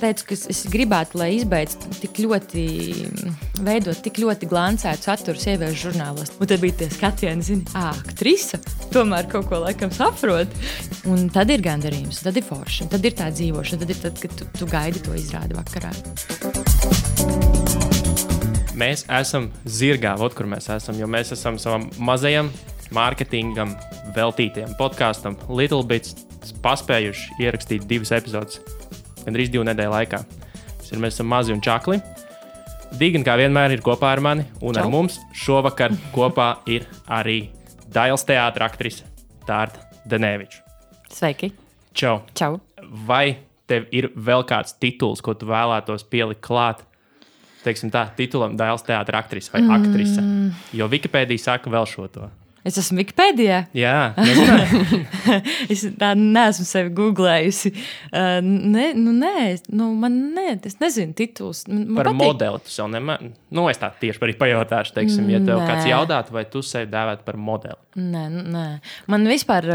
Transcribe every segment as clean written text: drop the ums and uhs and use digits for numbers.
teicu, ka es gribētu, lai izbeidz veidot tik ļoti glancētu saturu sieviešu žurnālos. Un tad bija tie skatieni, zini, aktrise tomēr kaut ko laikam saprot. Un tad ir gandarījums, tad ir forši, tad ir tā dzīvošana, tad ir tad, kad tu gaidi to izrādi vakarā. Mēs esam zirgā, kur mēs esam, jo mēs esam savam mazajam mārketingam veltītajam podkastam Little Bits paspējuši ierakstīt 2 epizodes, gandrīz 2 nedēļu laikā. Mēs esam mazi un čakli. Digan, kā vienmēr, ir kopā ar mani, un ar mums šovakar kopā ir arī Dailes teātra aktrise Tārta Daneviča. Sveiki! Čau! Čau! Vai tev ir vēl kāds tituls, ko tu vēlētos pielikt klāt? Teiksim tā, titulam Dailes teātra aktrise vai aktrise. Jo Wikipēdija saka vēl šo to. Es esmu Wikipēdijā? Jā, nezināju. Es tā neesmu sevi googlējusi. Es nezinu tituls. Par modeli tu sev nemēr. Es tā tieši arī pajautāšu, teiksim, ja tev kāds jautāt, vai tu sevi dēvētu par modeli. Nē. Man vispār,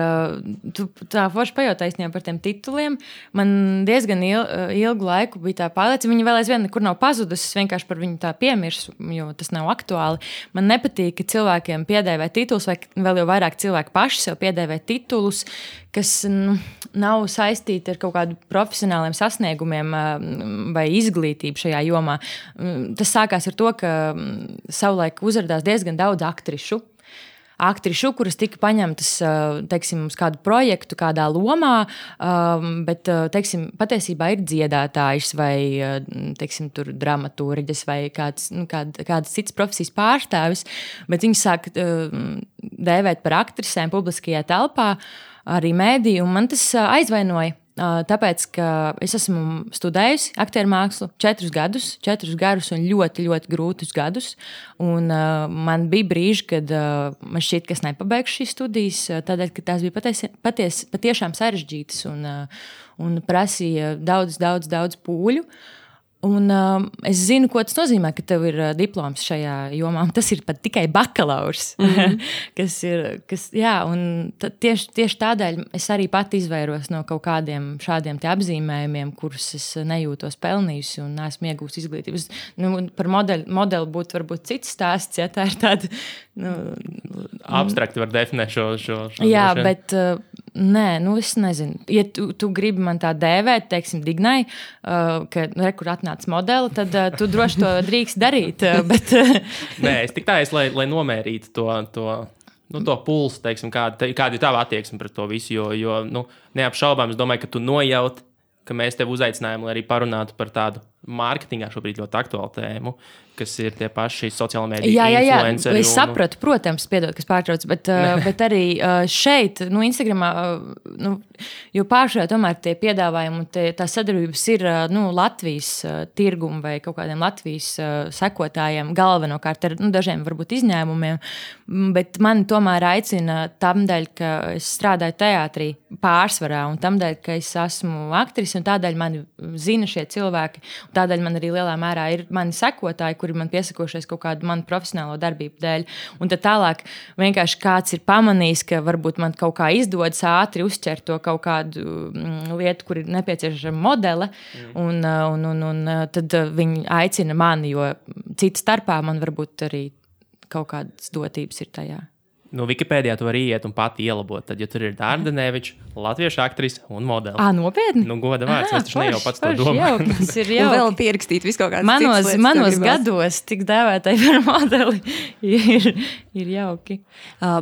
tu tā forši pajautāji par tiem tituliem. Man diezgan ilgu laiku bija tā pārliecība. Viņa vēl aizvien nekur nav pazudusi. Es vienkārši par viņu tā piemirsu, jo tas nav aktuāli. Man nepatīk, ka cilvēkiem piedēvē tituls, vai vēl jau vairāk cilvēki paši sev piedēvē titulus, kas nav saistīti ar kaut kādu profesionāliem sasniegumiem vai izglītību šajā jomā. Tas sākās ar to, ka savulaik uzrādījās diezgan daudz aktrišu, kuras tika paņemtas, teiksim, uz kādu projektu, kādā lomā, bet, teiksim, patiesībā ir dziedātājs vai, teiksim, tur dramaturģis vai kāds cits profesijas pārstāvis, bet viņi sāk dēvēt par aktrisēm publiskajā telpā, arī mēdī, un man tas aizvainoja. Tāpēc, ka es esmu studējusi aktieru mākslu 4 garus un ļoti, ļoti grūtus gadus. Un, man bija brīži, kad man šķiet, ka es nepabeigšu šīs studijas, tādēļ, ka tās bija patiešām sarežģītas un prasīja daudz pūļu. Un, es zinu, ko tas nozīmē, ka tev ir diploms šajā jomā. Tas ir pat tikai bakalaurs. Tieši tādēļ es arī pat izvairos no kaut kādiem šādiem apzīmējumiem, kurus es nejūtos pelnījusi un neesmu iegūst izglītības. Par modeli būtu varbūt cits stāsts, ja tā ir tāda... Abstrakti var definēt šo jā, bet nē, es nezinu. Ja tu gribi man tā dēvēt, teiksim, Dignai, ka kur atnāc modeli, tad tu droši to drīkst darīt. Bet... Nē, es tik tā lai nomērītu to pulsu, teiksim, kāda ir tava attieksme pret to visu, jo neapšaubām es domāju, ka tu nojaut, ka mēs tevi uzaicinājām, lai arī parunātu par tādu mārketingā šobrīd ļoti aktuālu tēmu, kas ir tie paši sociāla mēdīja influenceri. Es sapratu, protams, piedod, kas pārtrauc, bet arī šeit, Instagramā, jo pāršajā tomēr tie piedāvājumi, tā sadarbības ir Latvijas tirgumu vai kaut kādiem Latvijas sekotājiem galvenokārt ar dažiem varbūt izņēmumiem, bet mani tomēr aicina tamdēļ, ka es strādāju teātrī pārsvarā un tamdēļ, ka es esmu aktrise un tādēļ mani zina šie cilvēki. Tādēļ man arī lielā mērā ir mani sekotāji, kuri man piesakošies kaut kādu manu profesionālo darbību dēļ. Un tad tālāk vienkārši kāds ir pamanījis, ka varbūt man kaut kā izdodas ātri uzķert to kaut kādu lietu, kur ir nepieciešama modele, un tad viņi aicina mani, jo cita starpā man varbūt arī kaut kādas dotības ir tajā. Wikipēdijā tu vari iet un pati ielabot. Tad, ja tur ir Tārta Daneviča, latviešu aktrise un modeli. Nopietni? Goda vārds, es taču ne jau pats to domāju. Tas ir jau. Un vēl pierakstīt visu kaut kādas citas lietas. Manos gados tik dēvētai par modeli ir jauki.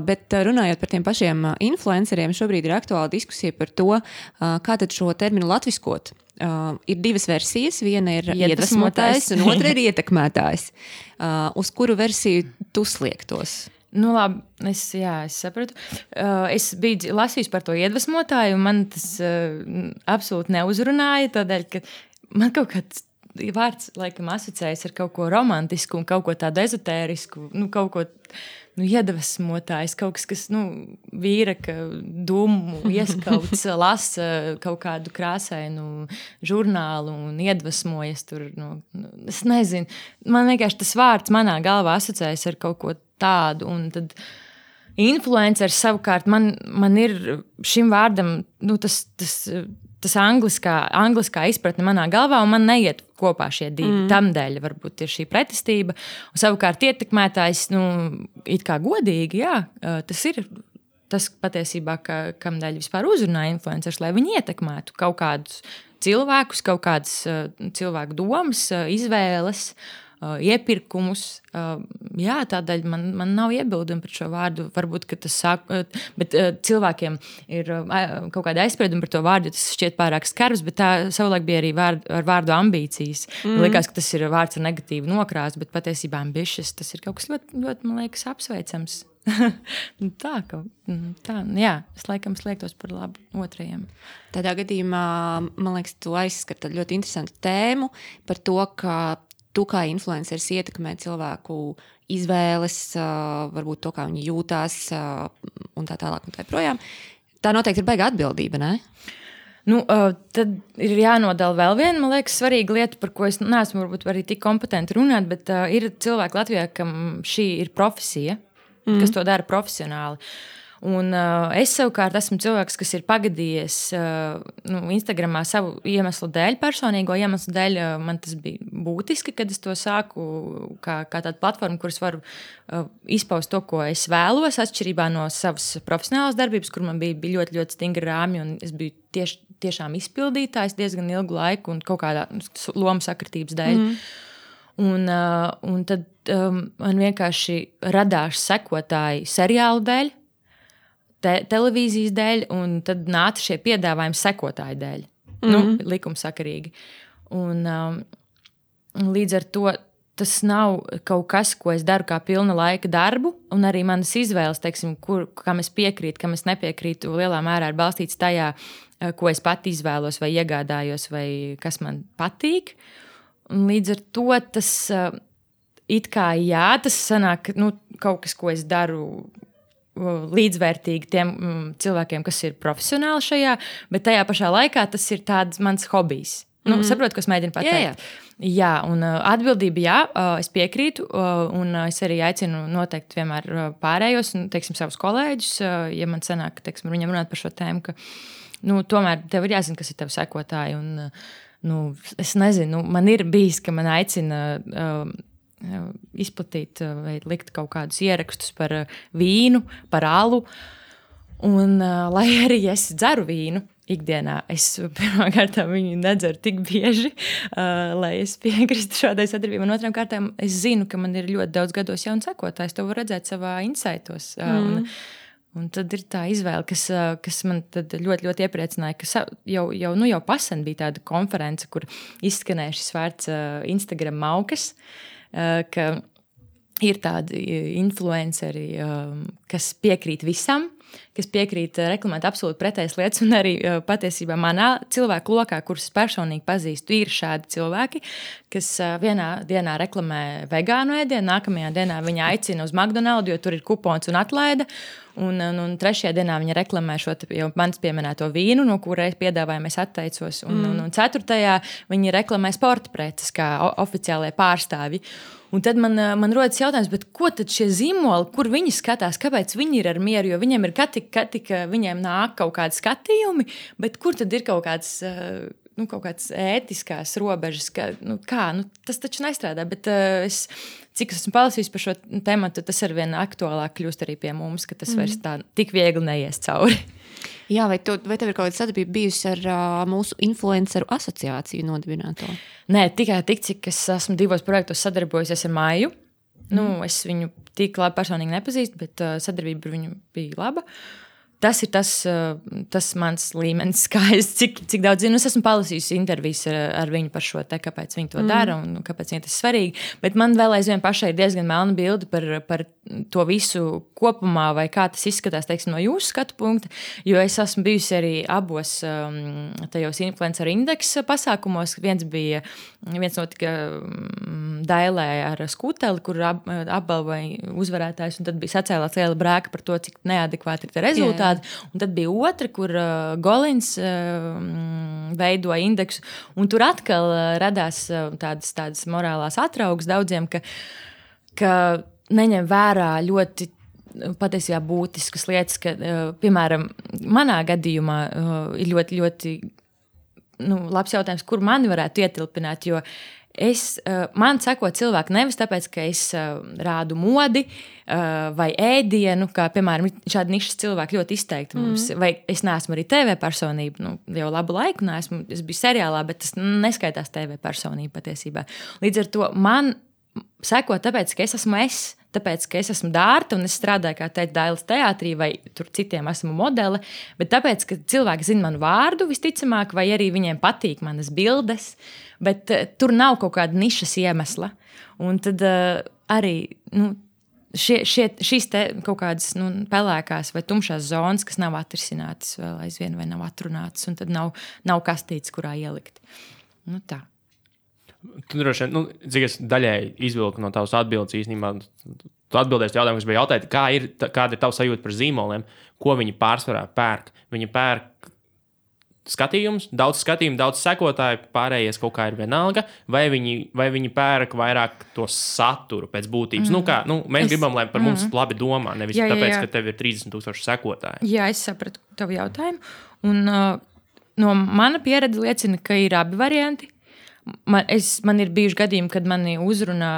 Bet runājot par tiem pašiem influenceriem, šobrīd ir aktuāla diskusija par to, kā tad šo terminu latviskot. Ir 2 versijas. Viena ir iedvesmotājs un otra ir ietekmētājs. Uz kuru versiju tu sliektos? Labi, es sapratu. Es biju lasījusi par to iedvesmotāju, un man tas absolūti neuzrunāja, tādēļ, ka man kaut kāds vārds laikam asociējas ar kaut ko romantisku un kaut ko tādu ezotērisku, kaut ko iedvesmotājs, kaut kas vīra, ka dūmu ieskauts, lasa kaut kādu krāsainu žurnālu un iedvesmojas tur. Es nezinu, man vienkārši tas vārds manā galvā asociējas ar kaut ko tādu, un tad influenceris savukārt man ir šim vārdam, tas tas angliskā izpratne manā galvā, un man neiet kopā šie divi. Tamdēļ varbūt ir šī pretestība. Un savukārt ietekmētājs, it kā godīgi, jā, tas ir tas patiesībā, kamdēļ vispār uzrunā influencerus, lai viņi ietekmētu kaut kādus cilvēkus, kaut kādas cilvēku domas, izvēles, iepirkumus. Jā, tādēļ man nav iebildumi par šo vārdu. Varbūt, ka tas sāk, bet cilvēkiem ir kaut kāda aizsprieduma par to vārdu, jo tas šķiet pārāk skarbs, bet tā savulaik bija arī ar vārdu ambīcijas. Likās, ka tas ir vārds ar negatīvu nokrāsu, bet patiesībā ambitious, tas ir kaut kas ļoti, ļoti, man liekas, apsveicams. Jā, es laikam sliektos par labu otrajiem. Tādā gadījumā, man liekas, tu aizskar tādu ļoti interesantu tēmu par to, ka tu kā influenceris ietekmē cilvēku izvēles, varbūt to, kā viņi jūtās un tā tālāk un tā projām. Tā noteikti ir baigā atbildība, ne? Tad ir jānodala vēl viena, man liekas, svarīga lieta, par ko es neesmu varbūt arī tik kompetenti runāt, bet ir cilvēki Latvijā, kam šī ir profesija, kas to dara profesionāli. Un es savukārt esmu cilvēks, kas ir pagadījies Instagramā savu iemeslu dēļ, personīgo iemeslu dēļ. Man tas bija būtiski, kad es to sāku kā tādu platformu, kuras varu izpaust to, ko es vēlos, atšķirībā no savas profesionālās darbības, kur man bija ļoti, ļoti stingri rāmji, un es biju tiešām izpildītājs diezgan ilgu laiku un kaut kādā lomu sakritības dēļ. Un tad man vienkārši radās sekotāji seriālu dēļ, televīzijas dēļ, un tad nāca šie piedāvājumi sekotāju dēļ. Likumsakarīgi. Un līdz ar to tas nav kaut kas, ko es daru kā pilna laika darbu, un arī manas izvēles, teiksim, kam es piekrītu, kam es nepiekrītu, lielā mērā ir balstīts tajā, ko es pati izvēlos vai iegādājos, vai kas man patīk. Un līdz ar to tas it kā jā, tas sanāk, kaut kas, ko es daru līdzvērtīgi tiem cilvēkiem, kas ir profesionāli šajā, bet tajā pašā laikā tas ir tāds mans hobijs. Saprotu, ko es mēģinu pateikt. Jā, un atbildība jā, es piekrītu, un es arī aicinu noteikti vienmēr pārējos, un, teiksim, savus kolēģus, ja man sanāk, teiksim, viņam runāt par šo tēmu, ka, tomēr tev ir jāzina, kas ir tev sekotāji, un, es nezinu, man ir bijis, ka man aicina izplatīt vai likt kaut kādus ierakstus par vīnu, par alu. Un, lai arī es dzeru vīnu ikdienā, es pirmkārt viņu nedzeru tik bieži, lai es piekristu šādai sadarbībai. Un otrām kārtām es zinu, ka man ir ļoti daudz gados jaunu sekotājs. To var redzēt savā insightos. Un tad ir tā izvēle, kas man tad ļoti, ļoti iepriecināja, ka jau pasen bija tāda konference, kur izskanēja šis vārds Instagram maukas, ka ir tādi influenceri, kas piekrīt visam, kas piekrīt reklamēt absolūti pretējas lietas, un arī patiesībā manā cilvēku lokā, kurus personīgi pazīstu, ir šādi cilvēki, kas vienā dienā reklamē vegānu ēdienu, nākamajā dienā viņa aicina uz McDonald's, jo tur ir kupons un atlaide, un trešajā dienā viņa reklamē šo jau manis pieminēto vīnu, no kura piedāvājumu es atteicos, un ceturtajā viņa reklamē sporta preces kā oficiālie pārstāvji. Un tad man rodas jautājums, bet ko tad šie zīmoli, kur viņi skatās, kāpēc viņi ir ar mieru, jo viņiem ir katika viņiem nāk kaut kādi skatījumi, bet kur tad ir kaut kāds ētiskās robežas, tas taču nestrādā, bet cik esmu palasījis par šo tematu, tas arvien aktuālāk kļūst arī pie mums, ka tas vairs tā tik viegli neies cauri. Jā, vai tev ir kaut kāda sadarbība bijusi ar mūsu influenceru asociāciju nodibināto? Nē, tikai tik, cik es esmu 2 projektos sadarbojusies ar Maiju. Es viņu tik labi personīgi nepazīstu, bet sadarbība ar viņu bija laba. Tas ir tas mans līmenis, cik daudz zinu. Es esmu palasījusi intervijas ar viņu par šo te, kāpēc viņi to dara un kāpēc viņiem tas svarīgi. Bet man vēl aizvien pašai ir diezgan melna bilde par to visu kopumā, vai kā tas izskatās, teiksim, no jūsu skatu punkta. Jo es esmu bijusi arī abos tajos influenceru indeksa pasākumos. Viens notika Dailē ar Skuteli, kur apbalvoja uzvarētājs, un tad bija sacēlāts liela brēka par to, cik neadekvāti ir tie rezultāti. Un tad bija otra, kur Golins veidoja indeksu, un tur atkal radās tādas morālās atraugas daudziem, ka neņem vērā ļoti patiesībā būtiskas lietas, ka, piemēram, manā gadījumā ir ļoti, ļoti labs jautājums, kur mani varētu ietilpināt, jo man seko cilvēki nevis tāpēc, ka es rādu modi vai ēdienu, kā, piemēram, šādi nišas cilvēki ļoti izteikti mums, vai es neesmu arī TV personība, jau labu laiku neesmu, es biju seriālā, bet tas neskaitās TV personība patiesībā. Līdz ar to man seko tāpēc, ka es esmu tāpēc, ka es esmu Dārta un es strādāju, kā teikt, Dailes teātrī vai tur citiem esmu modele, bet tāpēc, ka cilvēki zina manu vārdu visticamāk, vai arī viņiem patīk manas bildes, bet tur nav kaut kāda nišas iemesla. Un tad arī šīs te kaut kādas pelēkās vai tumšās zonas, kas nav atrisinātas vēl aizvien vai nav atrunātas, un tad nav kastītes, kurā ielikt. Tā. Tu droši vien, cik es daļēji izvilku no tavas atbildes īstenībā, tu atbildēsi jautājumu, kas bija jautājot, kāda ir tava sajūta par zīmoliem, ko viņi pārsvarā pērk. Viņi pērk skatījumus, daudz sekotāju, pārējais kaut kā ir vienalga, vai viņi pērk vairāk to saturu pēc būtības. Mēs gribam, lai par mums labi domā, nevis tāpēc, ka tev ir 30,000 sekotāji. Jā, es sapratu tavu jautājumu. Un no mana pieredze liecina, ka ir abi varianti. Man ir bijuši gadījumi, kad mani uzrunā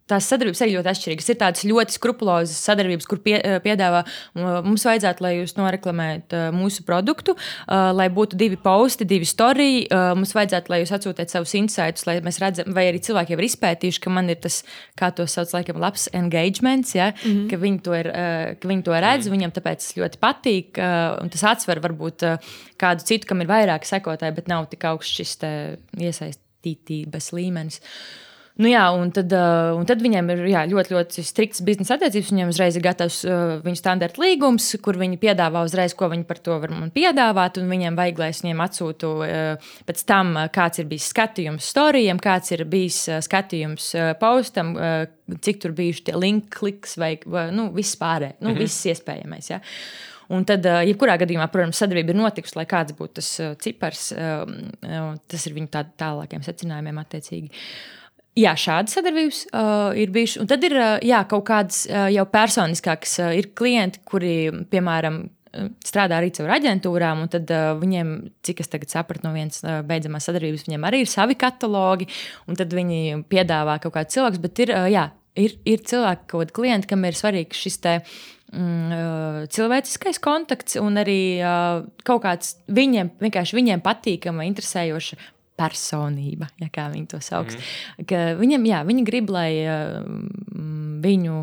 tās sadarbības arī ļoti atšķirīgas. Ir tādas ļoti skrupulozas sadarbības, kur piedāvā, mums vajadzētu, lai jūs noreklamējat mūsu produktu, lai būtu 2 posti, 2 storiji, mums vajadzētu, lai jūs atsūtiet savus insights, lai mēs redzam, vai arī cilvēki jau ir izpētījuši, ka man ir tas, kā to sauc, laikam, labs engagements, ja? Ka viņi to redz, viņam tāpēc tas ļoti patīk, un tas atsver varbūt kādu citu, kam ir vairāk sekotāji, bet nav tik augsts šis iesaistītības līmenis. Un tad viņiem ir ļoti, ļoti strikts biznesa attiecības. Viņiem uzreiz ir gatavs viņu standarta līgums, kur viņi piedāvā uzreiz, ko viņi par to var man piedāvāt. Un viņiem vajag, lai es viņiem atsūtu pēc tam, kāds ir bijis skatījums storijiem, kāds ir bijis skatījums postam, cik tur bijuši tie link kliks vai viss pārējais, viss iespējamais. Ja? Un tad, jebkurā gadījumā, protams, sadarbība ir notikusi, lai kāds būtu tas cipars. Tas ir viņu tālākiem secinājumiem attiecīgi. Jā, šādas sadarbības ir bijušas. Un tad ir kaut kādas jau personiskākas. Ir klienti, kuri, piemēram, strādā arī caur aģentūrām, un tad viņiem, cik es tagad sapratu no vienas beidzamās sadarbības, viņiem arī ir savi katalogi, un tad viņi piedāvā kaut kādu cilvēku. Bet ir cilvēki, kaut kādi klienti, kam ir svarīgs šis cilvēciskais kontakts un arī kaut kāds viņiem patīkama, interesējoša personība, ja kā viņi to sauks. Ka viņi grib, lai viņu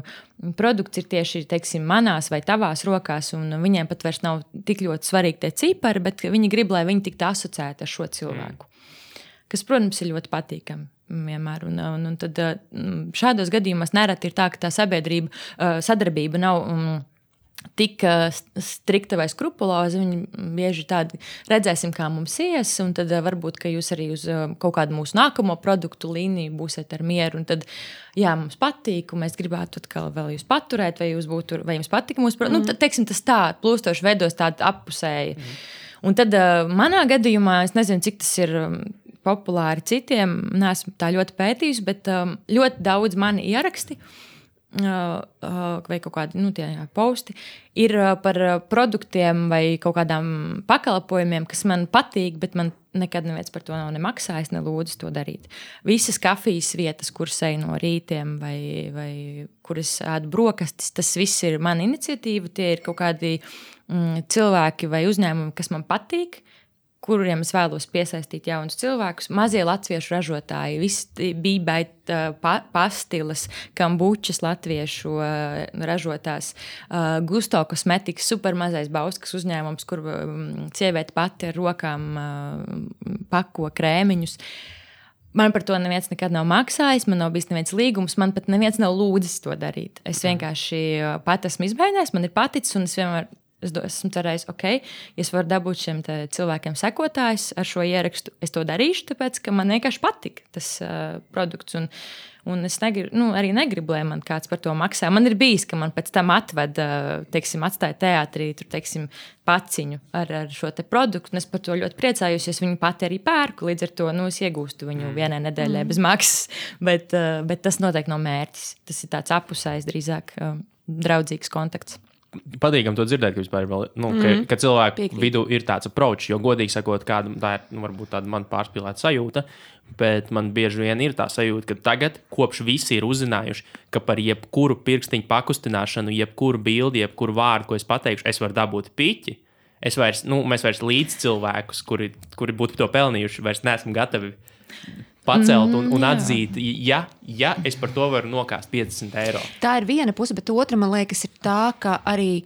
produkts ir tieši, teiksim, manās vai tavās rokās, un viņiem pat vairs nav tik ļoti svarīgi tie cipari, bet viņi grib, lai viņi tiktu asociēti ar šo cilvēku. Kas, protams, ir ļoti patīkami vienmēr. Un tad šādos gadījumos nereti ir tā, ka tā sadarbība nav tik strikta vai skrupuloza, viņi bieži tādi redzēsim, kā mums ies, un tad varbūt, ka jūs arī uz kaut kādu mūsu nākamo produktu līniju būsiet ar mieru, un tad, mums patīk, un mēs gribētu atkal vēl jūs paturēt, vai jums patīk mūsu produktu. Teiksim, tas tā plūstoši veidos tādu appusēji. Un tad manā gadījumā, es nezinu, cik tas ir populāri citiem, neesmu tā ļoti pētījusi, bet ļoti daudz mani ieraksti, vai kaut kādi posti ir par produktiem vai kaut kādām pakalpojumiem, kas man patīk, bet man nekad neviens par to nav nemaksājis, nelūdzu to darīt. Visas kafijas vietas, kuras eju no rītiem vai kuras ēdu brokastis, tas viss ir mana iniciatīva. Tie ir kaut kādi cilvēki vai uzņēmumi, kas man patīk, kuriem es vēlos piesaistīt jaunus cilvēkus. Mazie latviešu ražotāji, visi bībēt pastilas, kambučas latviešu ražotās, Gusto kosmetikas, supermazais bauskas uzņēmums, kur sieviete pati ar rokām pako krēmiņus. Man par to neviens nekad nav maksājis, man nav bijis neviens līgums, man pat neviens nav lūdzis to darīt. Es vienkārši pat esmu izmēģinājis, man ir paticis, un es vienmēr esmu cerējis, ja es varu dabūt šiem cilvēkiem sekotājus ar šo ierakstu, es to darīšu, tāpēc, ka man vienkārši patika tas produkts. Un es arī negribu, lai man kāds par to maksā. Man ir bijis, ka man pēc tam atstāja teātrī, paciņu ar šo te produktu, un es par to ļoti priecājos, es viņu pati arī pērku, līdz ar to es iegūstu viņu vienai nedēļai bez maksas, bet tas noteikti nav mērķis. Tas ir tāds apusējs, drīzāk draudzīgs kontakts. patīkam to dzirdēt, ka vispār vēl, ka cilvēku vidū ir tāds approach, jo godīgi sakot, kāda tā ir, varbūt tāda man pārspīlēta sajūta, bet man bieži vien ir tā sajūta, ka tagad, kopš visi ir uzzinājuši, ka par jebkuru pirkstiņu pakustināšanu, jebkuru bildi, jebkuru vārdu, ko es pateikšu, es varu dabūt piķi. Mēs vairs līdz cilvēkus, kuri būtu to pelnījuši, vairs neesam gatavi pacelt un atzīt, ja es par to varu nokāst 50 eiro. Tā ir viena puse, bet otra, man liekas, ir tā, ka arī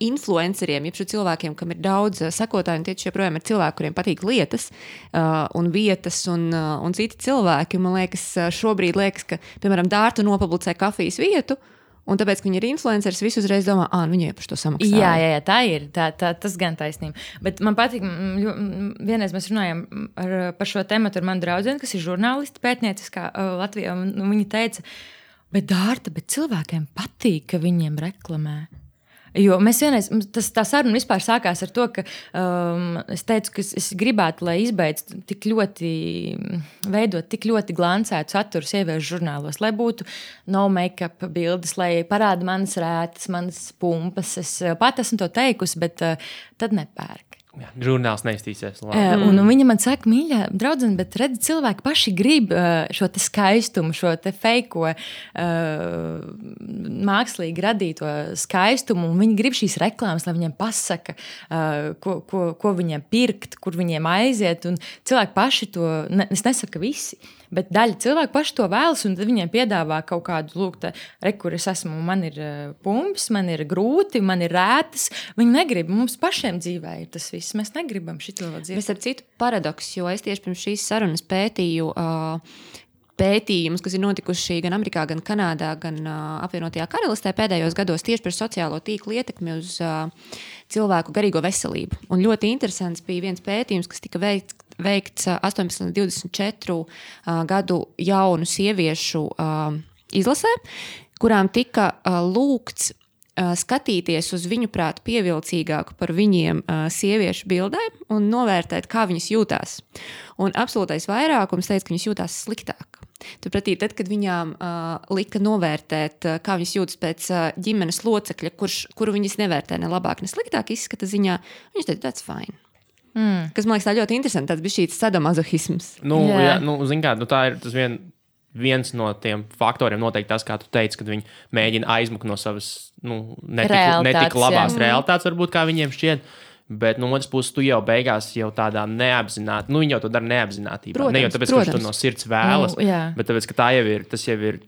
influenceriem, jeb šo cilvēkiem, kam ir daudz sekotāju, un tieši joprojām ir cilvēki, kuriem patīk lietas un vietas un citi cilvēki. Man liekas, šobrīd liekas, ka, piemēram, Dārta nopublicē kafijas vietu, un tāpēc, ka viņi ir influenceris, visi uzreiz domā, viņi jau par to samaksā. Jā, tā ir. Tas gan taisnība. Bet man patīk, vienreiz mēs runājām par šo tematu ar manu draudzeni, kas ir žurnālisti pētnieciskā Latvijā, un viņa teica, bet Dārta, cilvēkiem patīk, ka viņiem reklamē. Jo mēs vienreiz, tā saruna vispār sākās ar to, ka es teicu, ka es gribētu, lai izbeidz tik ļoti, veidot tik ļoti glancētu saturu sieviešu žurnālos, lai būtu no make-up bildes, lai parāda manas rētas, manas pumpas. Es pat esmu to teikusi, bet tad nepērk. Jā, žurnāls neiztīsies. Un viņa man saka, mīļā draudzene, bet redzi, cilvēki paši grib šo te skaistumu, šo te feiko mākslīgi radīto skaistumu, un viņi grib šīs reklāmas, lai viņiem pasaka, ko viņiem pirkt, kur viņiem aiziet, un cilvēki paši to, es nesaku, ka visi, bet daļa cilvēku paši to vēlas, un tad viņiem piedāvā kaut kādu, kur es esmu, man ir pumps, man ir grūti, man ir rētas, viņi negrib, mums pašiem dzīvē ir tas viss, mēs negribam šito dzīvi. Mēs ar citu paradoks, jo es tieši pirms šīs sarunas pētīju pētījumus, kas ir notikuši gan Amerikā, gan Kanādā, gan apvienotajā Karalistē pēdējos gados tieši par sociālo tīklu ietekmi uz cilvēku garīgo veselību. Un ļoti interesants bija viens pētījums, kas tika veikts 18 līdz 24 gadu jaunu sieviešu izlasē, kurām tika lūgts skatīties uz viņu prātu pievilcīgāku par viņiem sieviešu bildēm un novērtēt, kā viņas jūtās. Un absolūtais vairākums teica, ka viņas jūtās sliktāk. Turpretī, tad, kad viņām lika novērtēt, kā viņas jūtas pēc ģimenes locekļa, kuru viņas nevērtē ne labāk, ne sliktāk izskata ziņā, viņas teica, that's fine. Kas, man liekas, tā ļoti interesanti, tāds bija šīs sadomazohisms. Zin kā, tā ir tas viens no tiem faktoriem noteikti tas, kā tu teici, kad viņi mēģina aizmukt no savas netik labās realitātes, varbūt kā viņiem šķiet. Bet no otras puses, tu jau beigās jau tādā neapzināti, viņi jau to dara neapzinātībā. Protams, ne jau tāpēc, ka tu to no sirds vēlas, bet tāpēc, ka tas jau ir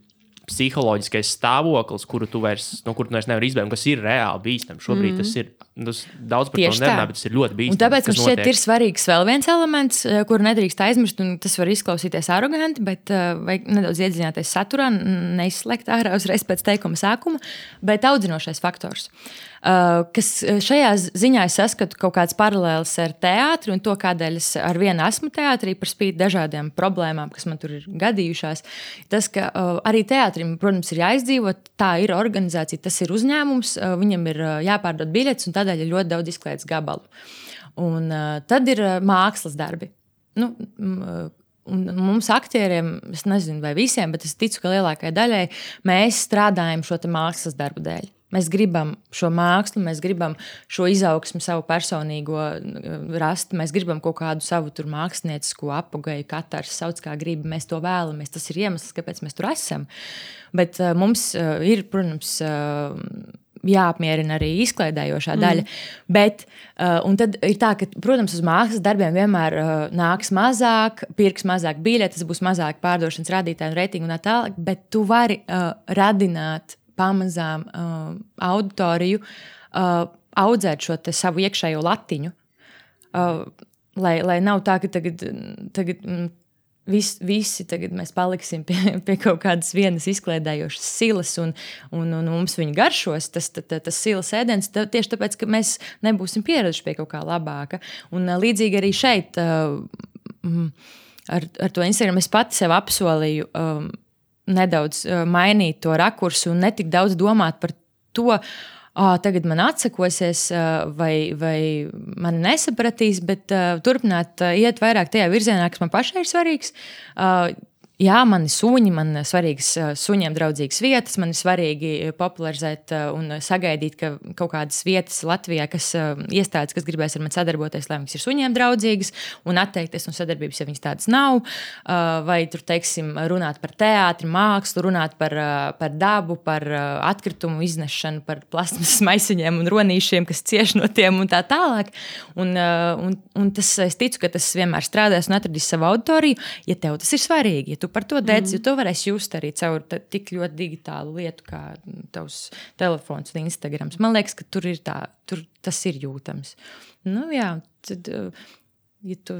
psiholoģiskais stāvoklis, kuru tu vairs nevari izbēgt, kas ir reāli bīstams. Šobrīd tas ir daudz par to nerunā, bet tas ir ļoti bīstams. Un tāpēc man šķiet ir svarīgs vēl viens elements, kuru nedrīkst aizmirst, un tas var izklausīties aroganti, bet vajag nedaudz iedziļināties saturā, neizslēgt ārā uzreiz pēc teikuma sākuma, bet audzinošais faktors. Kas šajā ziņā es saskatu kaut kāds paralēlis ar teātri un to, kādēļ es ar vienu esmu teātrī par spīti dažādiem problēmām, kas man tur ir gadījušās. Tas, ka arī teātrim, protams, ir jāizdzīvot, tā ir organizācija, tas ir uzņēmums, viņam ir jāpārdod biļetes un tādēļ ir ļoti daudz izklaides gabalu. Un tad ir mākslas darbi. Un mums aktieriem, es nezinu vai visiem, bet es ticu, ka lielākajai daļai mēs strādājam šo te mākslas darbu dēļ. Mēs gribam šo mākslu, mēs gribam šo izaugsmu savu personīgo rast, mēs gribam kaut kādu savu tur māksliniecisko apogēju, katrs sauc kā grib, mēs to vēlamies, tas ir iemesls, kāpēc mēs tur esam. Bet mums ir, protams, jāapmierina arī izklaidējošā daļa, bet un tad ir tā, ka, protams, uz mākslas darbiem vienmēr nāks mazāk, pirks mazāk biļetes, būs mazāk pārdošanas rādītāji un reitingu un tā tālāk, bet tu vari radināt pamazām auditoriju, audzēt šo te savu iekšējo latiņu, lai nav tā, ka tagad visi tagad mēs paliksim pie kaut kādas vienas izkliedējošas silas un mums viņa garšos, tas silas ēdiens, tieši tāpēc, ka mēs nebūsim pieraduši pie kaut kā labāka. Un līdzīgi arī šeit ar to Instagram es pati sev apsolīju nedaudz mainīt to rakursu un netik daudz domāt par to, tagad man atsakosies vai mani nesapratīs, bet turpināt iet vairāk tajā virzienā, kas man pašai ir svarīgs. Jā, man ir suņi, man ir svarīgas suņiem draudzīgas vietas, man ir svarīgi popularizēt un sagaidīt, ka kaut kādas vietas Latvijā, kas iestādes, kas gribēs ar mani sadarboties, lai viņas ir suņiem draudzīgas, un atteikties no sadarbības, ja viņas tādas nav, vai tur, teiksim, runāt par teātri, mākslu, runāt par dabu, par atkritumu iznešanu, par plasmasas maisiņiem un ronīšiem, kas cieš no tiem un tā tālāk. Un tas, es ticu, ka tas vienmēr strādās un atradīs savu auditoriju, ja tev tas ir svarīgi, ja tu par to dēļ, jo to varēs just arī caur tik ļoti digitālu lietu kā tavs telefons un Instagrams. Man liekas, ka tur tas ir jūtams. Nu jā, tad, ja tu,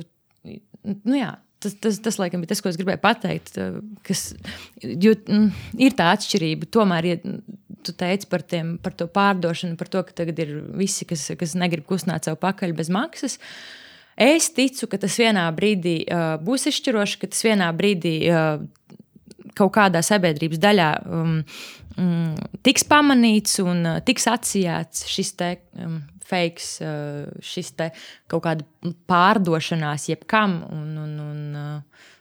nu jā, tas laikam bija tas, ko es gribēju pateikt, jo ir tā atšķirība, tomēr, ja tu teici par to pārdošanu, par to, ka tagad ir visi, kas negrib kustināt savu pakaļ bez maksas. Es ticu, ka tas vienā brīdī būs izšķiroši, ka tas vienā brīdī kaut kādā sabiedrības daļā tiks pamanīts un tiks atsijāts šis te fakes, šis te kaut kāda pārdošanās jebkam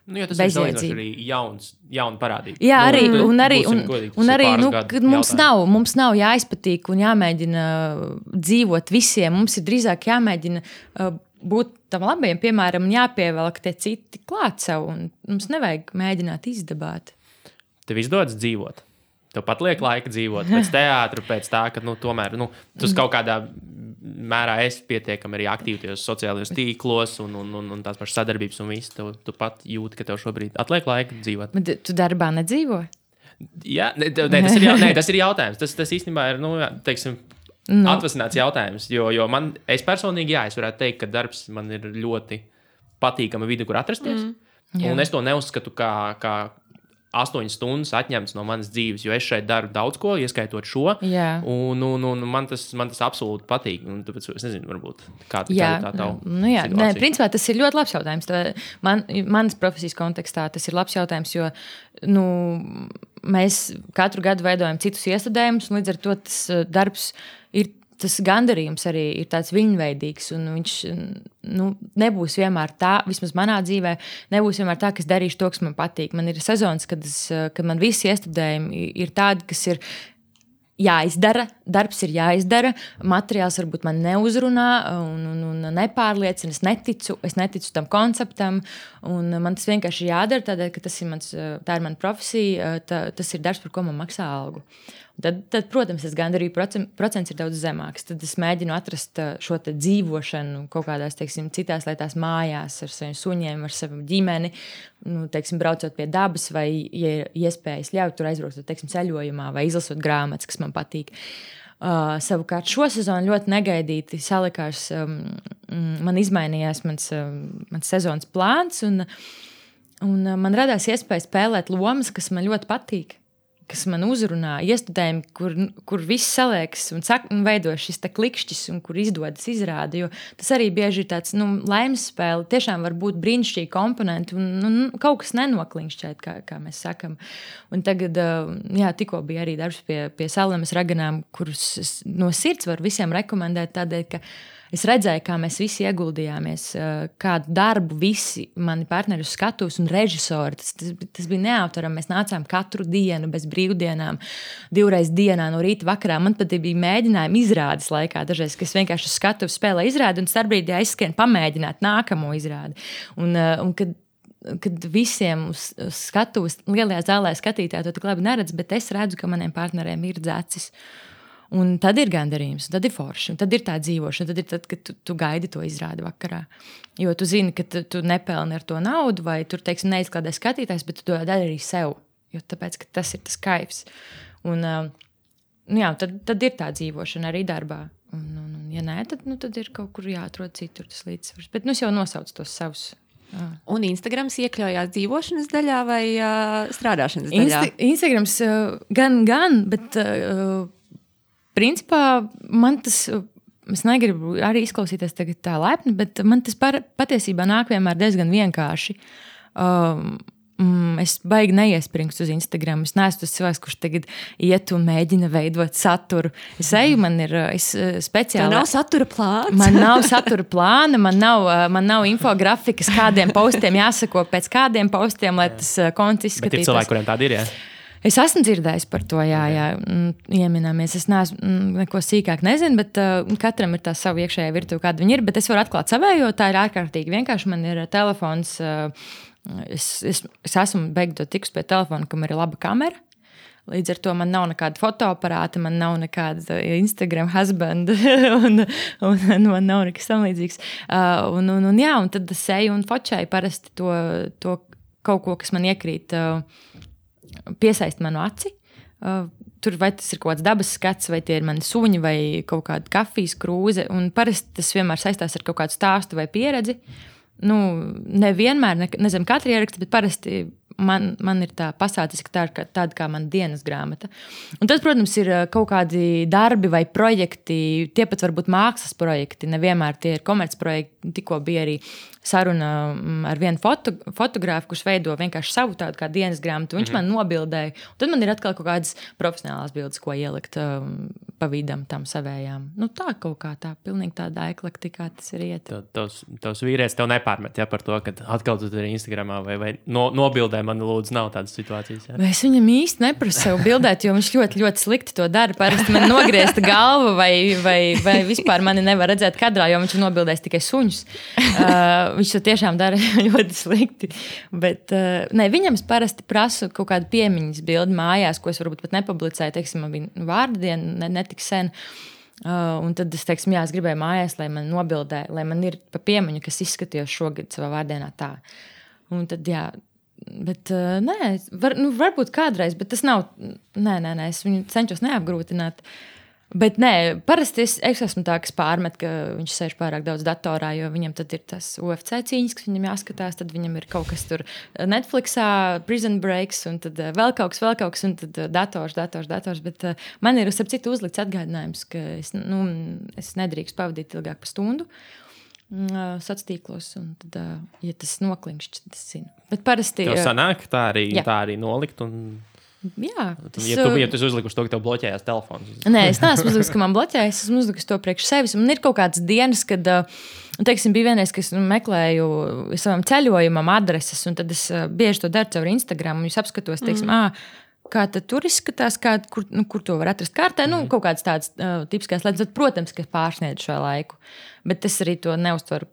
Nu, jo tas ir salīdzinoši arī jauna parādība. Jā, arī mums nav jāizpatīk un jāmēģina dzīvot visiem. Mums ir drīzāk jāmēģina būt tam labajam, piemēram, un jāpievelk tie citi klāt sev. Un mums nevajag mēģināt izdabāt. Tev izdodas dzīvot. Tev pat liek laika dzīvot pēc teātra, pēc tā, ka tomēr tu kaut kādā mērā esi pietiekami arī aktīvi tajos sociālajos tīklos un tās pašas sadarbības un viss. Tu pat jūti, ka tev šobrīd atliek laika dzīvot. Bet tu darbā nedzīvo? Jā, tas ir jautājums. Tas īstenībā ir, teiksim, atvasināts jautājums. Jo es personīgi, es varētu teikt, ka darbs man ir ļoti patīkama vide, kur atrasties. Un es to neuzskatu kā 8 stundas atņemts no manas dzīves, jo es šeit daru daudz ko, ieskaitot šo. Jā. Un man tas absolūti patīk. Un tāpēc es nezinu, varbūt kāda ir tā tava situācija. Nē, principā tas ir ļoti labs jautājums. Manas profesijas kontekstā tas ir labs jautājums, jo mēs katru gadu veidojam citus iestudējumus, un līdz ar to tas darbs ir. Tas gandarījums arī ir tāds viņveidīgs, un viņš nebūs vienmēr tā, vismaz manā dzīvē, nebūs vienmēr tā, ka es darīšu to, kas man patīk. Man ir sezonas, kad man visi iestudējumi ir tādi, kas ir jāizdara, darbs ir jāizdara, materiāls varbūt man neuzrunā un nepārliecina, es neticu tam konceptam, un man tas vienkārši jādara, tādēļ, ka tā ir mana profesija, tas ir darbs, par ko man maksā algu. Tad, protams, tas gandarījuma procents ir daudz zemāks. Tad es mēģinu atrast šo te dzīvošanu kaut kādās, teiksim, citās lietās mājās ar saviem suņiem, ar savu ģimeni, teiksim, braucot pie dabas vai, ja iespējas ļauj tur aizbraukt, teiksim, ceļojumā vai izlasot grāmatas, kas man patīk. Savukārt šo sezonu ļoti negaidīti salikās, man izmainījās mans sezonas plāns un man radās iespēja spēlēt lomas, kas man ļoti patīk. Kas man uzrunā, iestudējumi, kur viss saliekas un veido šis klikšķis, un kur izdodas izrādi. Jo tas arī bieži ir tāds laimes spēle. Tiešām var būt brīnišķīgi komponenti, un kaut kas nenokliņšķēt, kā mēs sakam. Un tagad, tikko bija arī darbs pie Sallemas raganām, kurus no sirds var visiem rekomendēt tādēļ, ka es redzēju, kā mēs visi ieguldījāmies, kādu darbu visi mani partneri uz skatuves un režisori. Tas bija neaptverami. Mēs nācām katru dienu bez brīvdienām, 2 reizes dienā no rīta vakarā. Man pat bija mēģinājumi izrādes laikā dažreiz, ka es vienkārši uz skatuves spēlēju izrādi un starpbrīdī aizskrien pamēģināt nākamo izrādi. Un kad visiem uz skatuves lielajā zālē skatītāji to tik labi neredz, bet es redzu, ka maniem partneriem ir dzecis. Un tad ir gandarījums, tad ir forši, tad ir tā dzīvošana, tad ir tad, kad tu gaidi to izrādi vakarā. Jo tu zini, ka tu nepelni ar to naudu, vai tur, teiksim, neizklādē skatītājs, bet tu to dari arī sev, jo tāpēc, ka tas ir tas kaifs. Un, tad ir tā dzīvošana arī darbā. Un ja nē, tad ir kaut kur jāatrod citur tas līdzsvars. Bet es jau nosaucu tos savus. Un Instagrams iekļaujās dzīvošanas daļā vai strādāšanas daļā? Instagrams gan, bet... Principā man tas, es negribu arī izklausīties tā laipni, bet man tas patiesībā nāk vienmēr diezgan vienkārši. Es baigi neiespringstu uz Instagram. Es neesmu tas cilvēks, kurš tagad iet un mēģina veidot saturu. Es eju, man ir speciāli. Tev nav satura plāns? Man nav satura plāna, man nav infografikas, kādiem postiem jāsako pēc kādiem postiem, lai tas konts izskatītos. Bet ir cilvēki, kuriem tādi ir, jā? Es esmu dzirdējis par to, jā, ieminēmies. Es neesmu neko sīkāk nezinu, bet katram ir tā savu iekšējā virtuve, kāda viņi ir. Bet es varu atklāt savējo, tā ir ārkārtīgi vienkārši. Man ir telefons. Es esmu beigtot tikus pie telefona, kam ir laba kamera. Līdz ar to man nav nekāda fotoaparāta, man nav nekāda Instagram husband, un man nav nekas tam līdzīgs. Un tad es eju un fočēju parasti to kaut ko, kas man iekrīt, piesaist manu aci. Tur vai tas ir kaut kāds dabas skats, vai tie ir mani suņi, vai kaut kāda kafijas krūze. Un parasti tas vienmēr saistās ar kaut kādu stāstu vai pieredzi. Nevienmēr, nezinu, katru ierakstu, bet parasti man ir tā pasācis, ka tā ir tāda kā mana dienas grāmata. Un tas, protams, ir kaut kādi darbi vai projekti, tie pat varbūt mākslas projekti, nevienmēr tie ir komercprojekti. Tikko bija arī saruna ar vienu fotogrāfu, kurš veido vienkārši savu tādu kā dienas grāmatu. Viņš man nobildēja. Un tad man ir atkal kaut kādas profesionālās bildes, ko ielikt pa vidam tam savējām. Tā kaut kā tā, pilnīgi tāda eklektikā tas ir iet. Tavs vīrietis tev nepārmet, par to, ka atkal tu tur Instagramā vai nobildē man lūdzu nav tādas situācijas. Jā. Es viņam īsti neprasu sev bildēt, jo viņš ļoti, ļoti slikti to dara. Parasti man nogriezta galva vai vispār mani nevar redzēt kadrā, jo viņš ir nobildējis tikai suņus. Viņš to tiešām dara ļoti slikti. Bet viņam es parasti prasu kaut kādu piemiņas bildi mājās, ko es varbūt pat nepublicēju. Teiksim, man bija vārda diena netik sen. Un tad es teiksim, es gribēju mājās, lai man nobildē, lai man ir pa piemiņu, kas izskatījos šogad savā vārdienā tā. Un tad, bet varbūt kādreiz, bet tas nav, es viņu cenšos neapgrūtināt. Bet parasti es esmu tā, kas pārmet, ka viņš sēž pārāk daudz datorā, jo viņam tad ir tas UFC cīņas, kas viņam jāskatās, tad viņam ir kaut kas tur Netflixā, Prison Breaks, un tad vēl kaut kas, un tad dators, bet man ir starp citu uzlikts atgādinājums, ka es nedrīkst pavadīt ilgāk par stundu sacīklos, un tad, ja tas noklinkšķi, tad es zinu. Bet parasti... Tev sanāk tā arī nolikt un... Jā. Ja tu uzlikuši to, ka tev bloķējās telefons. Nē, es neesmu uzlikus, ka man bloķējas, esmu uzlikus to priekš sevis. Man ir kaut kādas dienas, kad, teiksim, bija vienreiz, ka es meklēju savam ceļojumam adreses, un tad es bieži to daru caur Instagram, un es apskatos, teiksim, kā tad tur izskatās, kur to var atrast kārtē, kaut kādas tādas tipiskās lietas, tad, protams, ka pārsniedz šo laiku. Bet es arī to neuztveru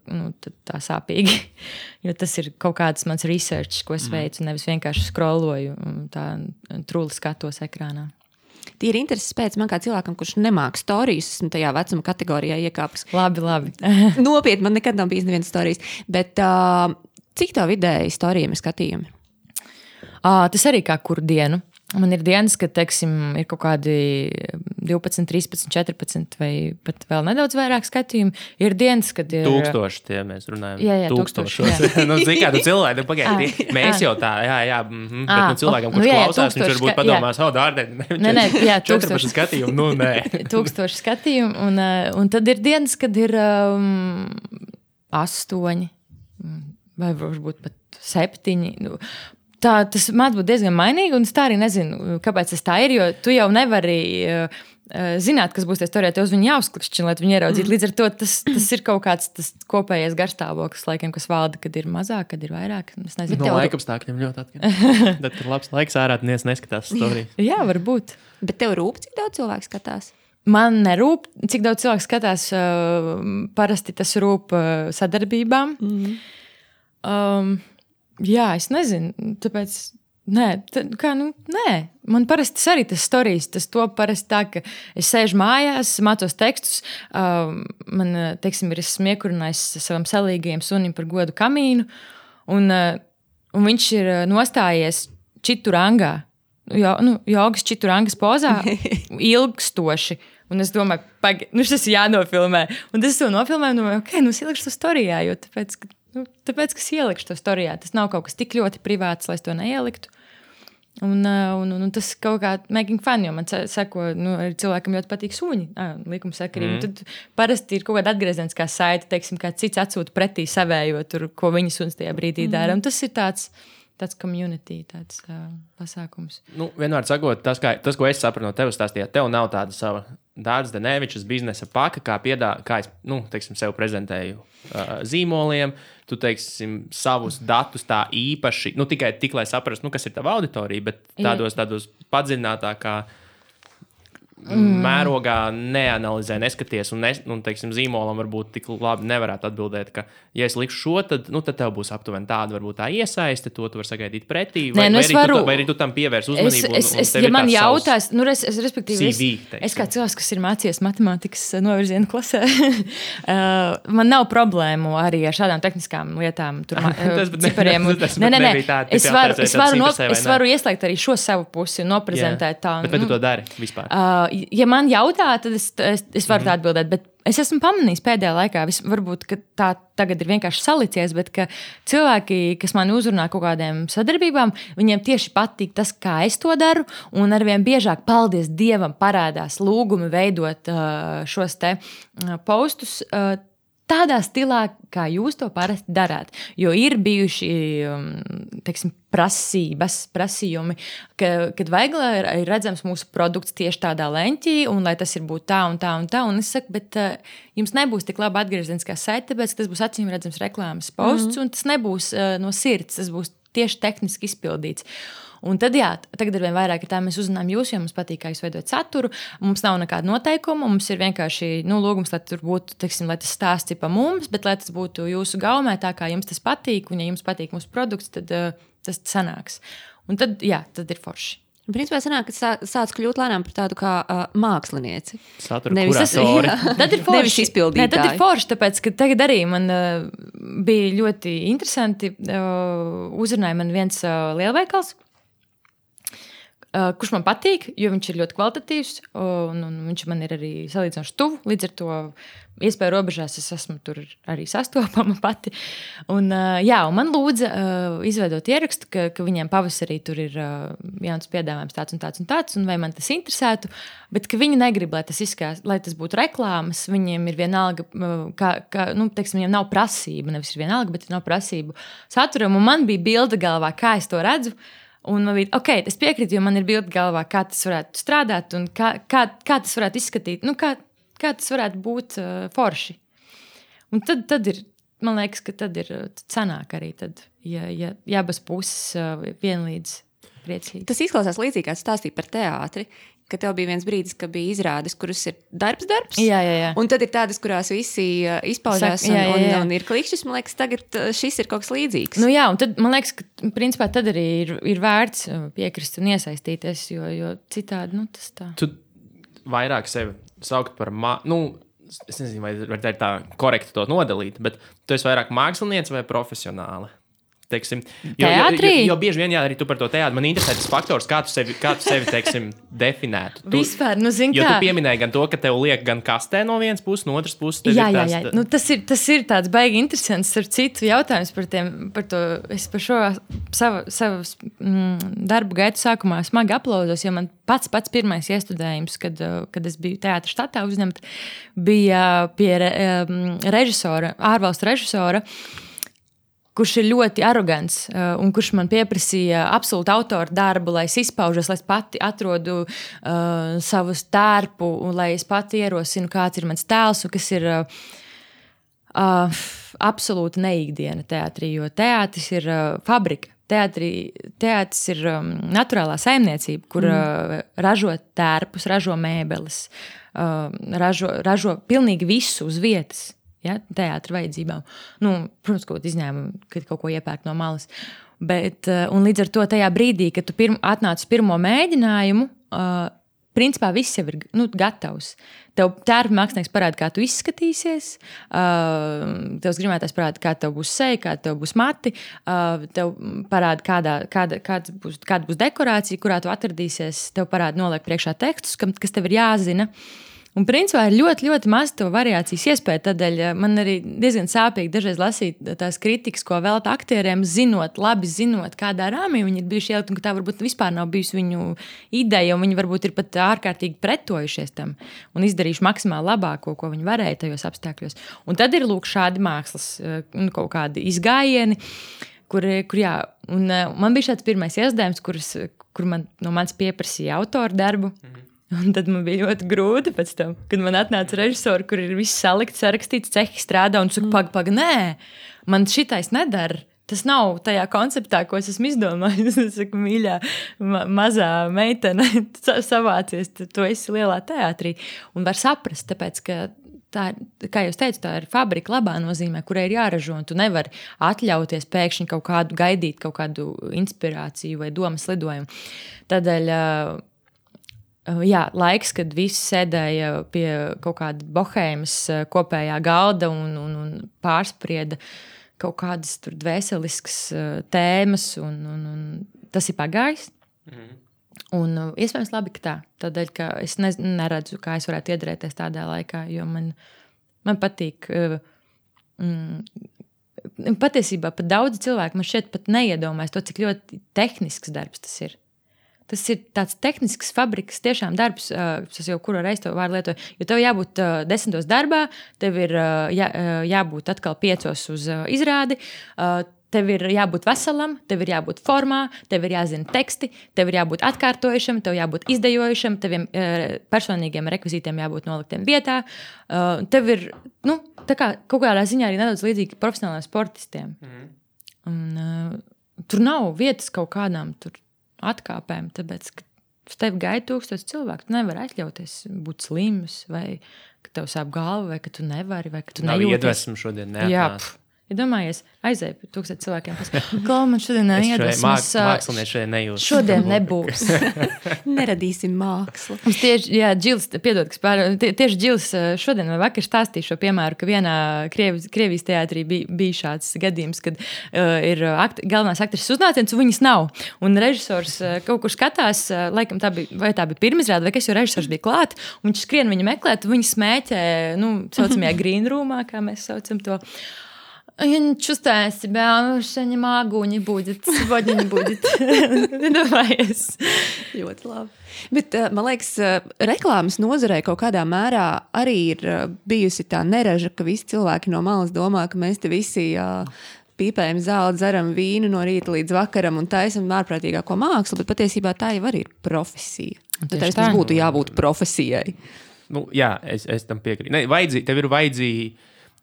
tā sāpīgi, jo tas ir kaut kāds mans research, ko es veicu, nevis vienkārši scrolloju tā truli skatos ekrānā. Tīri intereses pēc man kā cilvēkam, kurš nemāk storijas, esmu tajā vecuma kategorijā iekāpis. Labi. Nopietni, man nekad nav bijis nevienas storijas. Bet cik tā vidēji storijiem ir skatījumi? Tas arī kā kuru dienu. Man ir dienas, kad, teiksim, ir kaut kādi 12, 13, 14 vai pat vēl nedaudz vairāk skatījumu. Ir dienas, kad ir... 1000 tie mēs runājam. Jā, 1000. Zini, kādu cilvēku, pagaidi, mēs jau tā, bet cilvēkam, kurš klausās, viņš varbūt padomās, Nē, 14 skatījumu, nē. 1000 skatījumu, un tad ir dienas, kad ir 8 vai varbūt pat 7. Tas māc būt diezgan mainīgi, un es tā arī nezinu, kāpēc tas tā ir, jo tu jau nevari zināt, kas būs tie storijā, tev uz viņu jāuzklikšķina, lai tu viņu ieraudzītu. Līdz ar to tas ir kaut kāds tas kopējais garstāvoklis, laikam, kas valda, kad ir mazāk, kad ir vairāk. Es nezinu. No laikapstākļiem ļoti atkarīgi. Tad, kad labs laiks ārā, neskatās storijas. Jā, varbūt. Bet tev rūp, cik daudz cilvēku skatās? Man nerūp, cik daudz cilvēku skatās. Parasti tas rūp sadarbībām. Jā, es nezinu, tāpēc, nē, man parasti arī tas storijas, tas to parasti tā, ka es sēžu mājās, mācos tekstus, man, teiksim, ir smiekurinājis savam salīgajam sunim par godu kamīnu, un viņš ir nostājies čiturangā, jogas čiturangas pozā, ilgstoši. Un es domāju, šis ir jānofilmē. Un es to nofilmēju, un domāju, es ielikšu to storijā, jo tāpēc, ka es ielikšu to storijā. Tas nav kaut kas tik ļoti privāts, lai es to neieliktu. Un tas kaut kā making fun, jo man seko, cilvēkam ļoti patīk suņi, likumsakarīgi. Tad parasti ir kaut kāda atgriezeniskā saite, teiksim, kā cits atsūta pretī savējo, tur, ko viņa suns tajā brīdī dara. Un tas ir tāds tāds community, tāds pasākums. Nu, vienmēr sakot, tas, ko es sapratu no tevis stāstījāt, tev nav tāda sava Dārts Denevičs biznesa paka, kā es, teiksim, sev prezentēju zīmoliem. Tu, teiksim, savus datus tā īpaši, tikai tik, lai saprastu, kas ir tava auditorija, bet tādos padziļinātākā mērogā neanalizē, neskaties, un teiksim, zīmolam varbūt tik labi nevarētu atbildēt, ka, ja es likšu šo, tad tev būs aptuveni tāda, varbūt tā iesaiste, to tu vari sagaidīt pretī, vai arī tu tam pievērs uzmanību. Ja man jautās, respektīvi, es kā cilvēks, kas ir mācījies matemātikas novirzienu klasē, man nav problēmu arī ar šādām tehniskām lietām, cipariem. Nē, es varu ieslēgt arī šo savu pusi un noprezentēt tā. Bet vai tu to dari vispār? Ja man jautā, tad es varu tā atbildēt, bet es esmu pamanījis pēdējā laikā, varbūt tā tagad ir vienkārši salicies, bet ka cilvēki, kas mani uzrunā kaut kādiem sadarbībām, viņiem tieši patīk tas, kā es to daru, un arvien biežāk, paldies Dievam, parādās lūgumi veidot šos te postus tādā stilā, kā jūs to parasti darāt. Jo ir bijuši, teiksim, prasījumi, kad vajag, lai ir redzams mūsu produkts tieši tādā leņķī, un lai tas ir būt tā un tā un tā. Un es saku, bet jums nebūs tik laba atgriezeniskā saite, tāpēc, ka tas būs acīm redzams reklāmas posts, un tas nebūs no sirds, tas būs tieši tehniski izpildīts. Un tad, tagad ar vien vairāk tā mēs uzzinām jūs, jo mums patīk, kā jūs veidojat saturu. Mums nav nekāda noteikuma, mums ir vienkārši lūgums, lai tur būtu, teiksim, lai tas stāsts ir pa mums, bet lai tas būtu jūsu gaumē, tā kā jums tas patīk, un ja jums patīk mūsu produkts, tad tas sanāks. Un tad, tad ir forši. Principā sanāk, ka sāc kļūt lēnām par tādu kā mākslinieci. Satura kuratori. Tad ir forši. Nevis izpildītāji. Tad ir forši, tāpēc, ka tagad arī man bija ļoti interesanti, uzrunāja man viens lielveikals, kurš man patīk, jo viņš ir ļoti kvalitatīvs, un viņš man ir arī salīdzinoši tuvu. Līdz ar to iespēju robežās es esmu tur arī sastopama pati. Un man lūdza izveidot ierakstu, ka viņiem pavasarī tur ir jauns piedāvājums tāds un tāds un tāds, un vai man tas interesētu, bet ka viņi negrib, lai tas izskās, lai tas būtu reklāmas. Viņiem ir vienalga, teiksim, viņiem nav prasība, nevis ir vienalga, bet nav prasību saturam, un man bija bilde galvā, kā es to redzu. Un man bija, es piekrītu, jo man ir bilde galvā, kā tas varētu strādāt un kā tas varētu izskatīt, kā tas varētu būt forši. Un tad ir, man liekas, ka tad ir sanāk arī, tad, ja abas puses vienlīdz priecīgi. Tas izklausās līdzīgi, kā stāstīja par teātri, ka tev bija viens brīdis, ka bija izrādes, kuras ir darbs. Jā. Un tad ir tādas, kurās visi izpaužās un ir klikšķis. Man liekas, tagad šis ir kaut kas līdzīgs. Un tad, man liekas, ka principā tad arī ir vērts piekrist un iesaistīties, jo citādi, tas tā. Tu vairāk sevi saukt par, es nezinu, vai tā korekti to nodalīt, bet tu esi vairāk mākslinieci vai profesionāli? Teiksim, jo bieži vien arī tu par to teātri. Man interesē tas faktors, kā tu sevi teiksim, definētu. Vispār, jo tu pieminēji gan to, ka tev liek gan kastē no vienas puses, no otras puses. Jā. Tas ir tāds baigi interesants ar citu jautājums par to. Es par šo savu darbu gaitu sākumā smagi aplaudos, jo man pats pirmais iestudējums, kad es biju teātra štatā uzņemta, bija pie režisora, ārvalstu režisora, kurš ir ļoti arogants un kurš man pieprasīja absolūtu autoru darbu, lai es izpaužos, lai es pati atrodu savu tērpu un lai es pati ierosinu, kāds ir mans tēls un kas ir absolūta neikdiena teātrī, jo teātris ir fabrika. Teātris ir naturālā saimniecība, kur ražo tērpus, ražo mēbeles, ražo pilnīgi visu uz vietas. Ja, teātra vajadzībām. Protams, kaut izņēmumu, kad kaut ko iepērk no malas. Bet, un līdz ar to tajā brīdī, kad tu atnāc uz pirmo mēģinājumu, principā viss jau ir gatavs. Tev tērpa mākslinieks parāda, kā tu izskatīsies, tevs grimētājs parāda, kā tev būs seja, kā tev būs mati, tev parāda, kāda būs dekorācija, kurā tu atradīsies, tev parāda noliek priekšā tekstus, kas tev ir jāzina. Un principā ir ļoti, ļoti maz to variācijas iespēja. Tādēļ man arī diezgan sāpīgi dažreiz lasīt tās kritikas, ko velta aktieriem, labi zinot, kādā rāmī viņi ir bijuši ielikt, un ka tā varbūt vispār nav bijusi viņu ideja, un viņi varbūt ir pat ārkārtīgi pretojušies tam un izdarījuši maksimāli labāko, ko viņi varēja tajos apstākļos. Un tad ir lūk šādi mākslas kaut kādi izgājieni, kur jā, un man bija šāds pirmais iesdējums, kur man no manis pieprasīja autoru darbu. Un tad man bija ļoti grūti pēc tam, kad man atnāca režisori, kur ir viss salikts, sarakstīts, cehi strādā, un saka, pag, nē, man šitais nedara. Tas nav tajā konceptā, ko es esmu izdomājis. Es saku, mīļā, mazā meitene, savācies, tu esi lielā teātrī. Un var saprast, tāpēc, ka tā, kā jūs teicat, tā ir fabrika labā nozīmē, kurai ir jāražo, un tu nevari atļauties pēkšņi gaidīt kaut kādu inspirāciju vai domas lidojumu. Tādēļ jā, laiks, kad visi sēdēja pie kaut kāda bohēmas kopējā galda un pārsprieda kaut kādas tur dvēseliskas tēmas, un tas ir pagājis. Un iespējams labi, ka tā. Tādēļ, ka es neredzu, kā es varētu iedarēties tādā laikā, jo man patīk. Patiesībā pat daudzi cilvēki man šeit pat neiedomājas to, cik ļoti tehnisks darbs tas ir. Tas ir tāds tehnisks fabrikas tiešām darbs, tas jau kuru reizi to vārdu lietoju, jo tev jābūt 10 darbā, tev ir jābūt atkal 5 uz izrādi, tev ir jābūt veselam, tev ir jābūt formā, tev ir jāzina teksti, tev ir jābūt atkārtojušam, tev jābūt izdejojušam, teviem personīgiem rekvizītiem jābūt noliktiem vietā. Tev ir, tā kā kaut kādā ziņā arī nedaudz līdzīgi profesionāliem sportistiem. Un, tur nav vietas kaut kādām tur atkāpēm, tāpēc, ka uz tevi gaida 1000 cilvēku. Tu nevari atļauties būt slims, vai ka tev sāp galva, vai ka tu nevari, vai ka tu nejūties. Nav iedvesmu šodien neatnāc. Jā, ja domājies, aizēj pie 1000 cilvēkiem. Klau, man šodien neiedvesmas. Mākslinieci šodien nejūt. Šodien nebūs. Neradīsim mākslu. Mums tieši, jā, Džils, piedod, tieši Džils šodien vai vakar stāstīja šo piemēru, ka vienā Krievijas teātrī bija šāds gadījums, kad ir galvenās aktrises uznāciens, un viņas nav. Un režisors kaut kur skatās, laikam tā bija pirmizrāde, vai kas, jo režisors bija klāt, un viņš skrien viņu meklēt, un viņi smēķē, saucamajā green roomā, kā mēs saucam to. Чувствую себя, что не могу, не будет. Сегодня не будет. Nedomājies. Ļoti labi. Bet, man liekas, reklāmas nozarē kaut kādā mērā arī ir bijusi tā neraža, ka visi cilvēki no malas domā, ka mēs te visi pīpējam zāli, dzeram vīnu no rīta līdz vakaram un taisam ārprātīgāko mākslu, bet patiesībā tā jau arī ir profesija. Tad tas būtu jābūt profesijai. Jā, es tam piekrītu.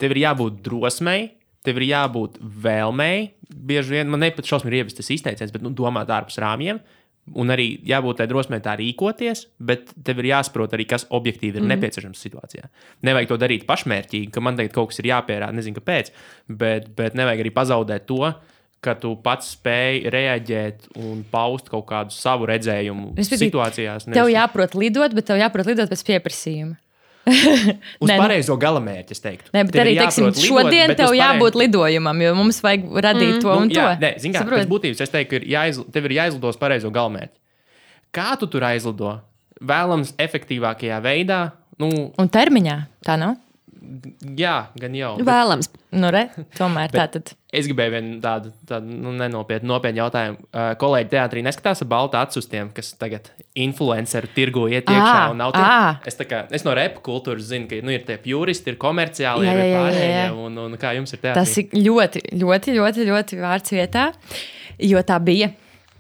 Tev ir jābūt drosmei, tev ir jābūt vēlmei. Bieži vien man nepat šausmīgi ievest tas izteiciens, bet domāt ārpus rāmjiem. Un arī jābūt tai drosmei tā rīkoties, bet tev ir jāsaprot arī, kas objektīvi ir nepieciešams situācijā. Nevajag to darīt pašmērķīgi, ka man tagad kaut kas ir jāpierāda, nezinu, kāpēc, bet nevajag arī pazaudēt to, ka tu pats spēj reaģēt un paust kaut kādu savu redzējumu situācijās. Tev jāprot lidot, bet tev jāprot lidot pēc pieprasījuma. Uz pareizo galamērķi, es teiktu. Nē, bet arī, teiksim, šodien tev jābūt lidojumam, jo mums vajag radīt to un to. Jā, nē, zin kā, pēc būtības es teiktu, ka tev ir jāizlido uz pareizo galamērķi. Kā tu tur aizlido? Vēlams efektīvākajā veidā. Un termiņā, tā nav? Jā, gan jau. Vēlams. Tomēr tā tad. Es gribēju vienu tādu nopietnu jautājumu. Kolēģi teātrī neskatās ar baltu acu uz tiem, kas tagad influenceru tirgu iet iekšā un nav tie. Es no repa kultūras zinu, ka ir tie pjuristi, ir komerciāli, ir pārējie, un kā jums ir teātrī? Tas ir ļoti, ļoti, ļoti, ļoti vārds vietā, jo tā bija.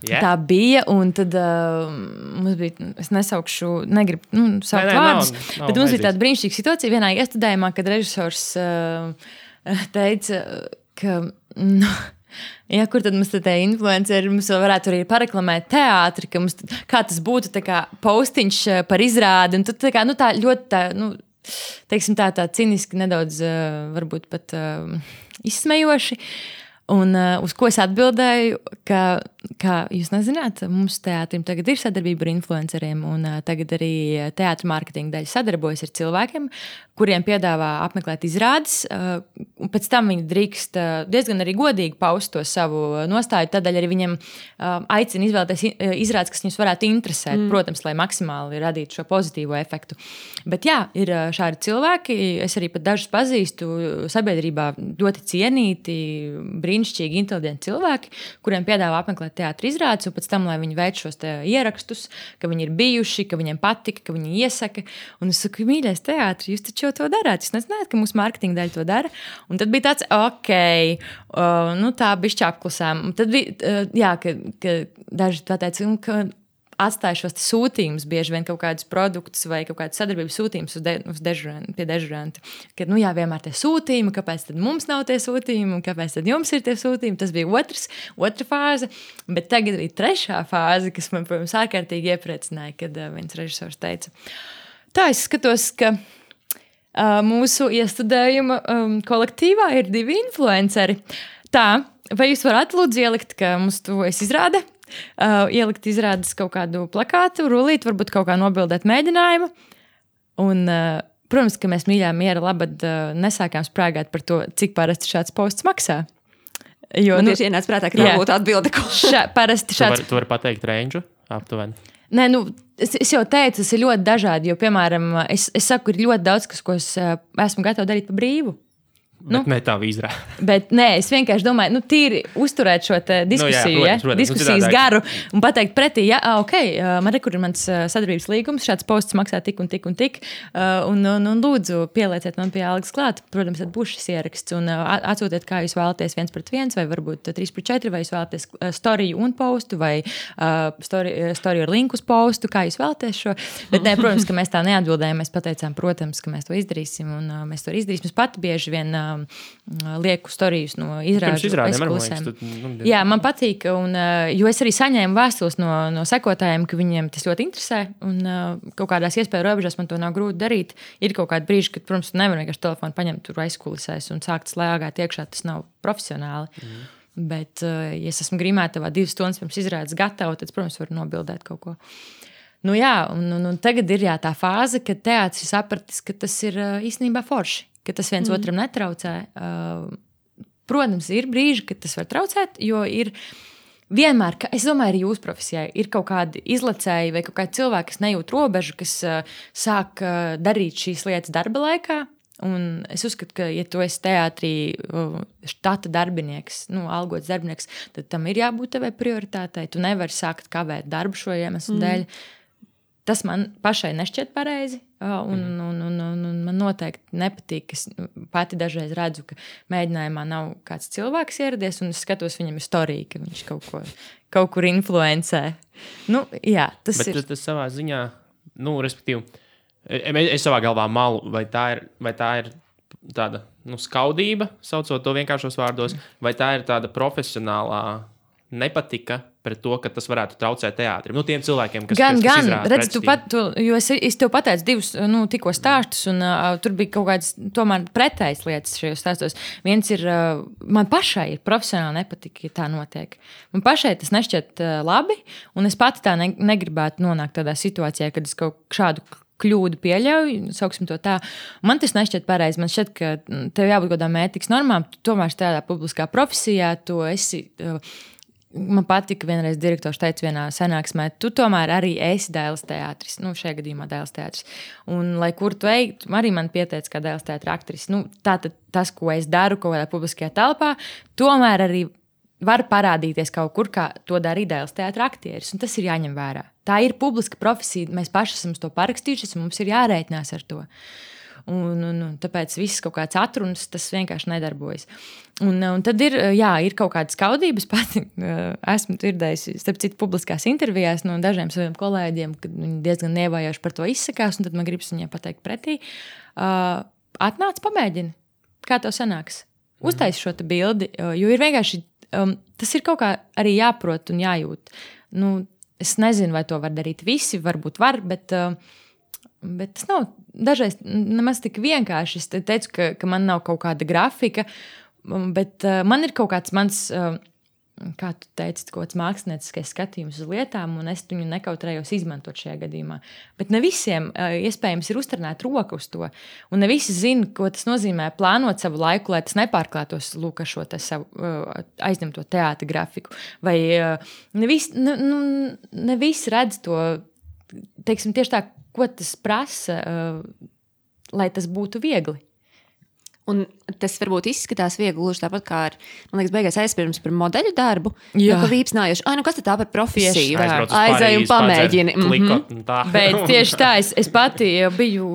Yeah. Tā bija, un tad mums bija, es negribu saukt vārdus, bet mums bija tāda brīnišķīga situācija vienā iestudējumā, kad režisors teica, ka, kur tad mums te influenceri, mums vēl varētu arī pareklamēt teātri, ka mums, kā tas būtu tā kā postiņš par izrādi, un tad tā kā, tā ļoti tā, teiksim tā ciniski nedaudz, varbūt pat izsmejoši. Un uz ko es atbildēju, ka jūs nezināt, mums teātrim tagad ir sadarbība ar influenceriem, un tagad arī teātra mārketinga daļa sadarbojas ar cilvēkiem, kuriem piedāvā apmeklēt izrādes, un pēc tam viņi drīkst diezgan arī godīgi paust to savu nostāju, tādēļ arī viņiem aicina izvēlēties izrādes, kas viņus varētu interesēt, protams, lai maksimāli radītu šo pozitīvo efektu. Bet jā, ir šādi cilvēki, es arī pat dažus pazīstu sabiedrībā ļoti cienīti, brīnišķīgi, inteliģenti cilvēki, kuriem piedāvā apmeklēt teātra izrādes, un pēc tam, lai viņi veic šos ierakstus, ka viņi ir bijuši, ka viņiem patika, ka viņi iesaka. Un es saku, mīļais teātris, jūs taču jau to darāt. Jūs nezināt, ka mūsu mārketinga daļa to dara. Un tad bija tāds, tā bišķi apklusām. Un tad bija, ka daži tā teica, ka atstāja šos sūtījumus, bieži vien kaut kādus produktus vai kaut kādas sadarbības sūtījumus pie dežuranta. Kad, vienmēr tie sūtījumi, kāpēc tad mums nav tie sūtījumi un kāpēc tad jums ir tie sūtījumi. Tas bija otra fāze, bet tagad bija trešā fāze, kas man, protams, ārkārtīgi iepriecināja, kad viens režisors teica, tā es skatos, ka mūsu iestudējuma kolektīvā ir 2 influenceri. Tā, vai jūs varat lūdzu ielikt, ka mums to izrāda? Ielikt izrādes kaut kādu plakātu, rulīt, varbūt kaut kā nobildēt mēģinājumu. Un, protams, ka mēs mīļā miera labad nesākām sprāgāt par to, cik parasti šāds posts maksā. Jo, tieši ienāca prātā, ka tā būtu atbilde. Parasti šāds... Tu vari pateikt range aptuveni? Nē, es jau teicu, tas ir ļoti dažādi, jo, piemēram, es saku, ir ļoti daudz, ko es esmu gatava darīt pa brīvu. Bet ne tā vīzrā. Bet nē, es vienkārši domāju, tīri uzturēt šo diskusiju, diskusijas garu un pateikt pretī, man ir mans sadarbības līgums, šāds posts maksā tik un tik un tik, un lūdzu pielieciet man pie algas klāt, protams, tad būs šis ieraksts, un atsūtiet, kā jūs vēlaties 1/1, vai varbūt 3/4, vai jūs vēlaties storiju un postu, vai storiju ar linku uz postu, kā jūs vēlaties šo. Bet nē, protams, ka mēs tā neatbildējām, mēs pateicām, protams, ka mēs to izdarīsim, un mēs to izdarīsim. Es pati bieži vien lieku storijas no izrāžu aizkulisēm. Jā, man patīk, jo es arī saņēmu vēstules no sekotājiem, ka viņiem tas ļoti interesē, un kaut kādās iespēju robežās man to nav grūti darīt. Ir kaut kādi brīži, kad, protams, nevar vienkārši telefonu paņemt tur aizkulisēs un sākt slēgāt iekšā, tas nav profesionāli. Bet, ja es esmu grimētavā 2 stundas pirms izrādes gatava, tad, protams, varu nobildēt kaut ko. Un tagad ir tā fāze, kad teātris ir sapratis, ka tas ir īstenībā forši. Ka tas viens otram netraucē. Protams, ir brīži, kad tas var traucēt, jo ir vienmēr, es domāju, arī jūsu profesijā ir kaut kādi izlacēji vai kaut kādi cilvēki, kas nejūt robežu, kas sāk darīt šīs lietas darba laikā. Un es uzskatu, ka, ja tu esi teātrī štata darbinieks, algots darbinieks, tad tam ir jābūt tevai prioritātei. Tu nevari sākt kavēt darbu šo iemeslu dēļ. Tas man pašai nešķiet pareizi, un man noteikti nepatīk. Es pati dažreiz redzu, ka mēģinājumā nav kāds cilvēks ieradies, un es skatos, viņam ir storija, ka viņš kaut kur influencē. Tas ir. Bet tas savā ziņā, respektīvi, es savā galvā malu, vai tā ir tāda skaudība, saucot to vienkāršos vārdos, vai tā ir tāda profesionālā nepatika pret to, ka tas varētu traucēt teātrim. Tiem cilvēkiem, kas izrāda redz, jo es tev pateicu 2 tikko stāstus, un tur bija kaut kādas tomēr pretējas lietas šajos stāstos. Viens ir, man pašai ir profesionāli nepatika, ja tā notiek. Man pašai tas nešķiet labi, un es pati tā negribētu nonākt tādā situācijā, kad es kaut šādu kļūdu pieļauju, sauksim to tā. Man tas nešķiet pareizi. Man šķiet, ka tev jābūt kādām ētikas normām. Tu tomēr tādā publiskā profesijā, tu esi... Man patika, vienreiz direktors teica vienā sanāksmē, tu tomēr arī esi Dailes teātris. Šajā gadījumā Dailes teātris. Un, lai kur tu ej, arī man pieteica kā Dailes teātra aktris. Tātad tas, ko es daru kaut kādā publiskajā telpā, tomēr arī var parādīties kaut kur, kā to dara Dailes teātra aktieris. Un tas ir jāņem vērā. Tā ir publiska profesija. Mēs paši esam to parakstījušies, un mums ir jārēķinās ar to. Un tāpēc viss kaut kāds atrunas, tas vienkārši nedarbojas. Un tad ir kaut kādas skaudības. Pati esmu dzirdējusi, starp citu, publiskās intervijās no dažiem saviem kolēģiem, kad viņi diezgan nievājoši par to izsakās, un tad man gribas viņiem pateikt pretī. Atnāc, pamēģini, kā tev sanāks. Uztaisi šo te bildi, jo ir vienkārši, tas ir kaut kā arī jāprot un jājūt. Es nezinu, vai to var darīt visi, varbūt var, bet tas nav dažreiz nemaz tik vienkārši. Es teicu, ka man nav kaut kāda grafika, bet man ir kaut kāds mans, kā tu teici, kaut kāds mākslinieckais skatījums uz lietām, un es viņu nekautrējos izmantot šajā gadījumā. Bet ne visiem iespējams ir uzturnēt roku uz to, un ne visi zina, ko tas nozīmē plānot savu laiku, lai tas nepārklātos ar šo savu aizņemto teātra grafiku. Vai ne visi redz to, teiksim, tieši tā, ko tas prasa, lai tas būtu viegli. Un tas varbūt izskatās viegli, gluži tāpat kā ar, man liekas, beigās aizpirms par modeļu darbu. Jā. Ka vīpsnājuši, nu kas tad tā par profesiju? Aizēj un pamēģini. Bet tieši tā, es pati biju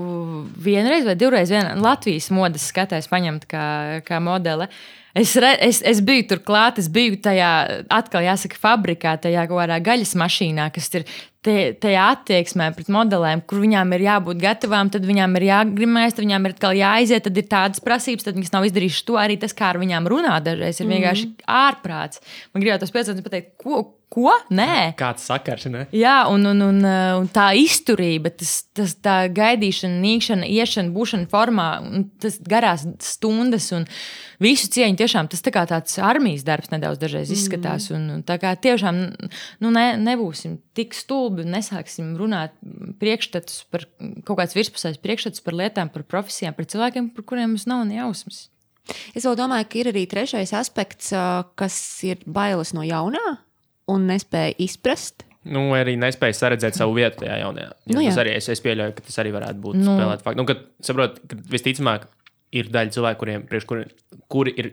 vienreiz vai divreiz Latvijas modes skatājs paņemt kā modele. Es biju tur klāt, es biju tajā, atkal jāsaka, fabrikā, tajā kaut kādā gaļas mašīnā, kas ir tajā attieksmē pret modelēm, kur viņām ir jābūt gatavām, tad viņām ir jāgrimēs, tad viņām ir atkal jāaiziet, tad ir tādas prasības, tad viņas nav izdarījušas to. Arī tas, kā ar viņām runā dažreiz, ir vienkārši ārprāts. Man gribētu tos 5 pateikt, ko? Nē. Kāds sakars, ne? Jā, un tā izturība, tā gaidīšana, nīkšana, iešana, būšana formā, tas garās stundas un visu cieņu tiešām tas tā kā tāds armijas darbs nedaudz dažreiz izskatās. Un tā kā tiešām nebūsim tik stulbi un nesāksim runāt priekšstatus par kaut kāds virspusējs priekšstatus par lietām, par profesijām, par cilvēkiem, par kuriem mums nav ne jausmas. Es vēl domāju, ka ir arī trešais aspekts, kas ir bailes no jaunā un nespēja izprast. Arī nespēja saredzēt savu vietu tajā jaunajā. Tas arī es pieļauju, ka tas arī varētu būt spēlēt faktu. Kad saprot, ka visticamāk ir daļa cilvēku, kuri ir,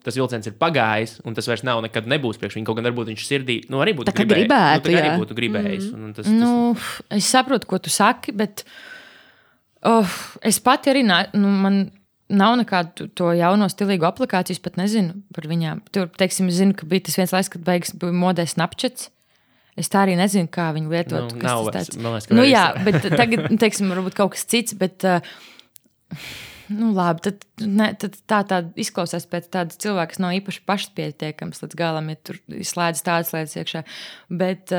tas vilciens ir pagājis, un tas vairs nav nekad nebūs priekš viņu. Kaut gan varbūt viņš sirdī, arī būtu gribētu. Arī būtu gribējis. Es saprotu, ko tu saki, bet es pati arī, man nav nekādu to jauno stilīgu aplikāciju, es pat nezinu par viņām. Tur, teiksim, es zinu, ka bija tas viens laiks, kad beigas bija modē Snapchats. Es tā arī nezinu, kā viņu lietot. Nav vairs, man liekas, jā, bet tagad, teiksim, varbūt kaut kas cits, bet labi, tad tā izklausās pēc tādas cilvēka, kas nav īpaši pašpietiekams līdz galam, ja tur slēdz tādas lietas iekšā. Bet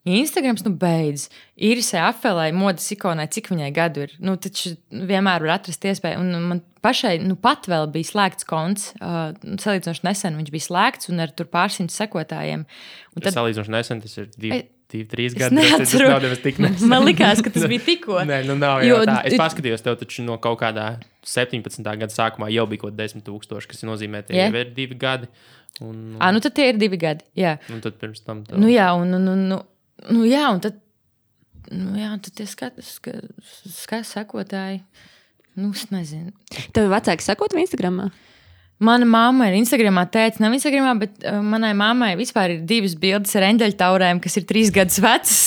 Instagrams, beidz. Irisai Afelai, modes ikonai, cik viņai gadu ir. Taču vienmēr var atrast iespēju. Un man pašai, pat vēl bija slēgts konts. Salīdzinoši nesen viņš bija slēgts un ar tur pārsimt sekotājiem. Salīdzinoši nesen tas ir 2-3 gadi. Tas nav nevis tik nesen. Man likās, ka tas bija tikko. Nē, nav jau tā. Es paskatījos tev taču no kaut kādā 17. gada sākumā jau bija kaut 10,000, kas nozīmē, ka jau ir 2 gadi. Tad tie ir 2 gadi, jā. Un tad pirms tam tev. Un tad tie sekotāji, es nezinu. Tev vecāki sekot Instagramā? Mana mamma ir Instagramā, tētis nav Instagramā, bet manai mammai vispār ir 2 bildes ar eņģeļtaurēm, kas ir 3 gadus vecas.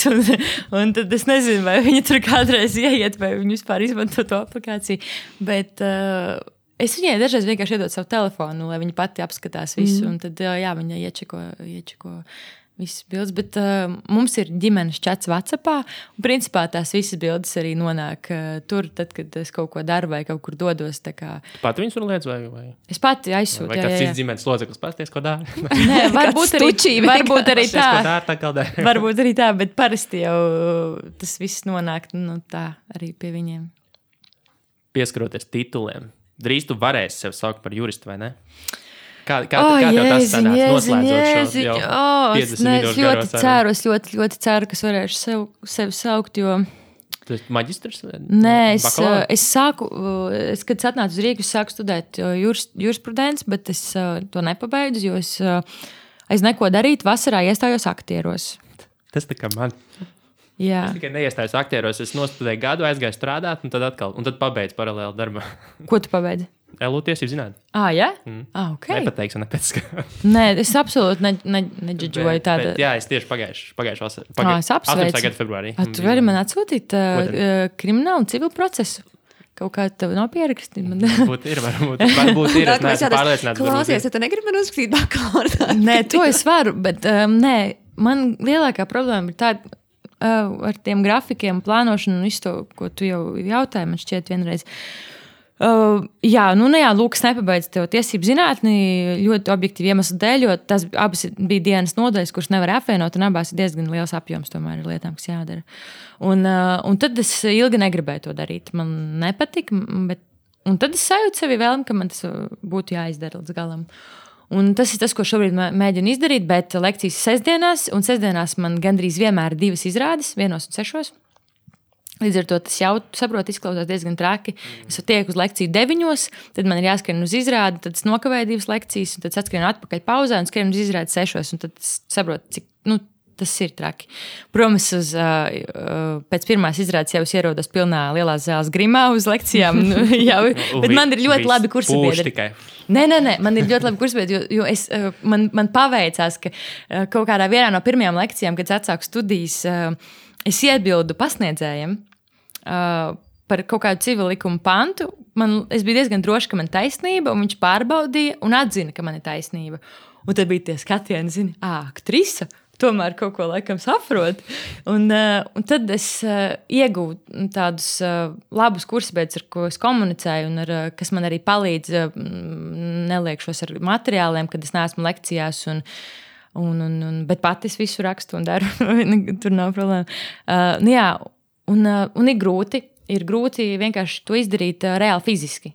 Un tad es nezinu, vai viņa tur kādreiz ieiet, vai viņa vispār izmanto to aplikāciju. Bet es viņai dažreiz vienkārši iedod savu telefonu, lai viņa pati apskatās visu. Un tad viņa iečeko visas bildes, bet mums ir ģimenes čats WhatsAppā, un principā tās visas bildes arī nonāk tur, tad, kad es kaut ko daru vai kaut kur dodos. Tu pati viņus tur liec vai? Es pati aizsūtu. Vai kāds cits ģimenes loceklis pasties, ko dara? Nē, varbūt arī tā. Varbūt arī tā, bet parasti jau tas viss nonāk tā arī pie viņiem. Pieskaroties tituliem, drīz tu varēsi sev saukt par juristu, vai ne? Kā tev tas sanāca noslēdzot šo jau 50 minūšu garo sarunu? Es ļoti ceru, ka es varēšu sevi saukt, jo... Tu esi maģistrs? Nē, es sāku, kad atnācu uz Rīgu, es sāku studēt jurisprudenci, bet es to nepabeidzu, jo es neko darīt, vasarā iestājos aktieros. Tas tā kā man. Jā. Es tikai neiestājos aktieros, es nostudēju gadu, aizgāju strādāt, un tad pabeidzu paralēli darbu. Ko tu pabeidzi? LU tiesību zināt. Jā? Ok. Nepateikšu, nepēc. Nē, es absolūti neģidžoju tādu. Jā, es tieši pagājuši vasarā. Es apsveicu. 18. gada februārī. Tu vari man atsūtīt kriminālu un civilu procesu? Kaut kā tev nav pierakstīt. Varbūt ir. Es neesmu pārliecināts. Klausies, ja tu negribi man uzrakstīt bakalaura. Nē, to es varu, bet man lielākā problēma ir tāda ar tiem grafikiem, plānošanu un visu to, ko tu jau jautāji, man šķiet vienreiz. Lūk, es nepabeidzu tev tiesību zinātni ļoti objektīvi iemeslu dēļ, jo tas abas bija dienas nodaļas, kuras nevar apvienot, un abās ir diezgan liels apjoms tomēr ir lietām, kas jādara. Un tad es ilgi negribēju to darīt. Man nepatika, un tad es sajūtu sevi vēlmi, ka man tas būtu jāizdara līdz galam. Un tas ir tas, ko šobrīd mēģinu izdarīt, bet lekcijas sestdienās, un sestdienās man gandrīz vienmēr ir 2 izrādes, 1 un 6. Līdz ar to tas jau, saprot, izklausās diezgan traki. Es tieku uz lekciju 9, tad man ir jāskrien uz izrādi, tad es nokavēju 2 lekcijas, un tad atskrienu atpakaļ pauzē un skrienu uz izrādi 6. Un tad es saprotu, cik tas ir traki. Protams, pēc pirmās izrādes jau ierodos pilnā lielās zāles grimā uz lekcijām. Bet man ir ļoti labi kursabiedri. Nē, man ir ļoti labi kursabiedri, jo man paveicās, ka kaut kādā vienā no pirmajām lekcijām, kad es atsāku studijas, es iebildu pasniedzējiem par kaut kādu civilu likumu pantu. Es biju diezgan droši, ka man ir taisnība, un viņš pārbaudīja un atzina, ka man ir taisnība. Un tad bija tie skatieni, aktrisa, tomēr kaut ko laikam saprot. Un tad es iegūtu tādus labus kursabiedrus, ar ko es komunicēju, un kas man arī palīdz neliekšos ar materiāliem, kad es neesmu lekcijās. Bet pati es visu rakstu un daru. Tur nav problēma. Un ir grūti. Ir grūti vienkārši to izdarīt reāli fiziski.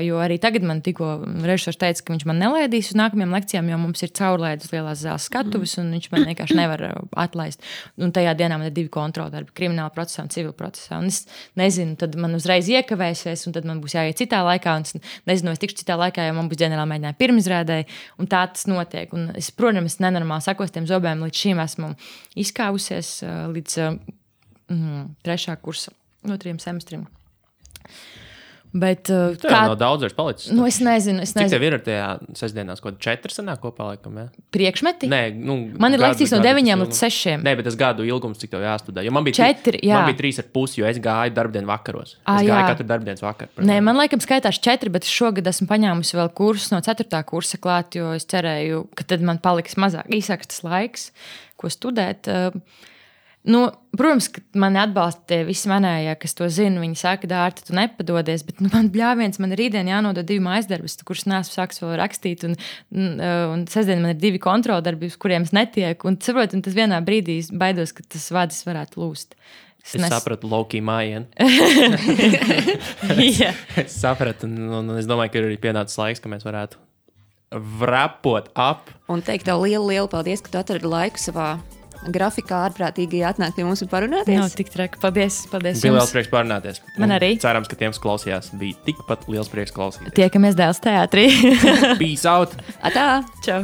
Jo arī tagad man tikko režisors teica, ka viņš man nelaidīs uz nākamajām lekcijām, jo mums ir caurlaides lielās zāles skatuves, un viņš man vienkārši nevar atlaist. Un tajā dienā man ir 2 kontroldarbi, krimināla procesā un civil procesā. Un es nezinu, tad man uzreiz iekavēsies, un tad man būs jāiet citā laikā. Un es nezinu, es tikšu citā laikā, jo man būs ģenerāla mēģinājuma pirmizrādē, un tā tas notiek. Un es, protams, nenormāli sakostiem zobēm līdz šīm esmu izkāvusies līdz 3. kursa. No 3 semestriem. Bet kā no daudz vairs palicis? Es nezinu. Cik tev ir ar tajā sestdienās, ko 4 sanāk kopā laikam, ja? Priekšmeti? Nē, man ir lekcijas no 9 līdz 6. Nē, bet tas gadu ilgums, cik tev jāstudē. Jo man bija 4, jā. Man bija 3,5, jo es gāju darbdienu vakaros. Es gāju katru darbdienas vakaru. Nē, man laikam skaitās 4, bet šogad esmu paņēmusi vēl kursus no 4. kursa klāt, jo es cerēju, ka tad man paliks īsāks tas laiks, ko studēt. Protams, ka mani atbalsta tie visi manējie, kas to zina. Viņi saka, Dārta, tu nepadodies, bet man bļāviens, man rītdien jānodod 2 mājasdarbus, kurus neesmu sāks vēl rakstīt, un sestdien man ir 2 kontroldarbi, uz kuriem es netieku, un saprotu, un tas vienā brīdī baidos, ka tas vadis varētu lūst. Es sapratu Loki mājienu. Es sapratu, un es domāju, ka ir arī pienācis laiks, ka mēs varētu vrapot ap. Un teikt tev lielu paldies, ka tu atradi laiku savā grafikā ārprātīgi atnāk pie mums un parunāties. Nav tik traki. Paldies jums. Bija liels prieks parunāties. Man arī. Cerams, ka tiem, kas klausījās, bija tikpat liels prieks klausīties. Tiekamies Dēls teātrī. Peace out. Atā. Čau.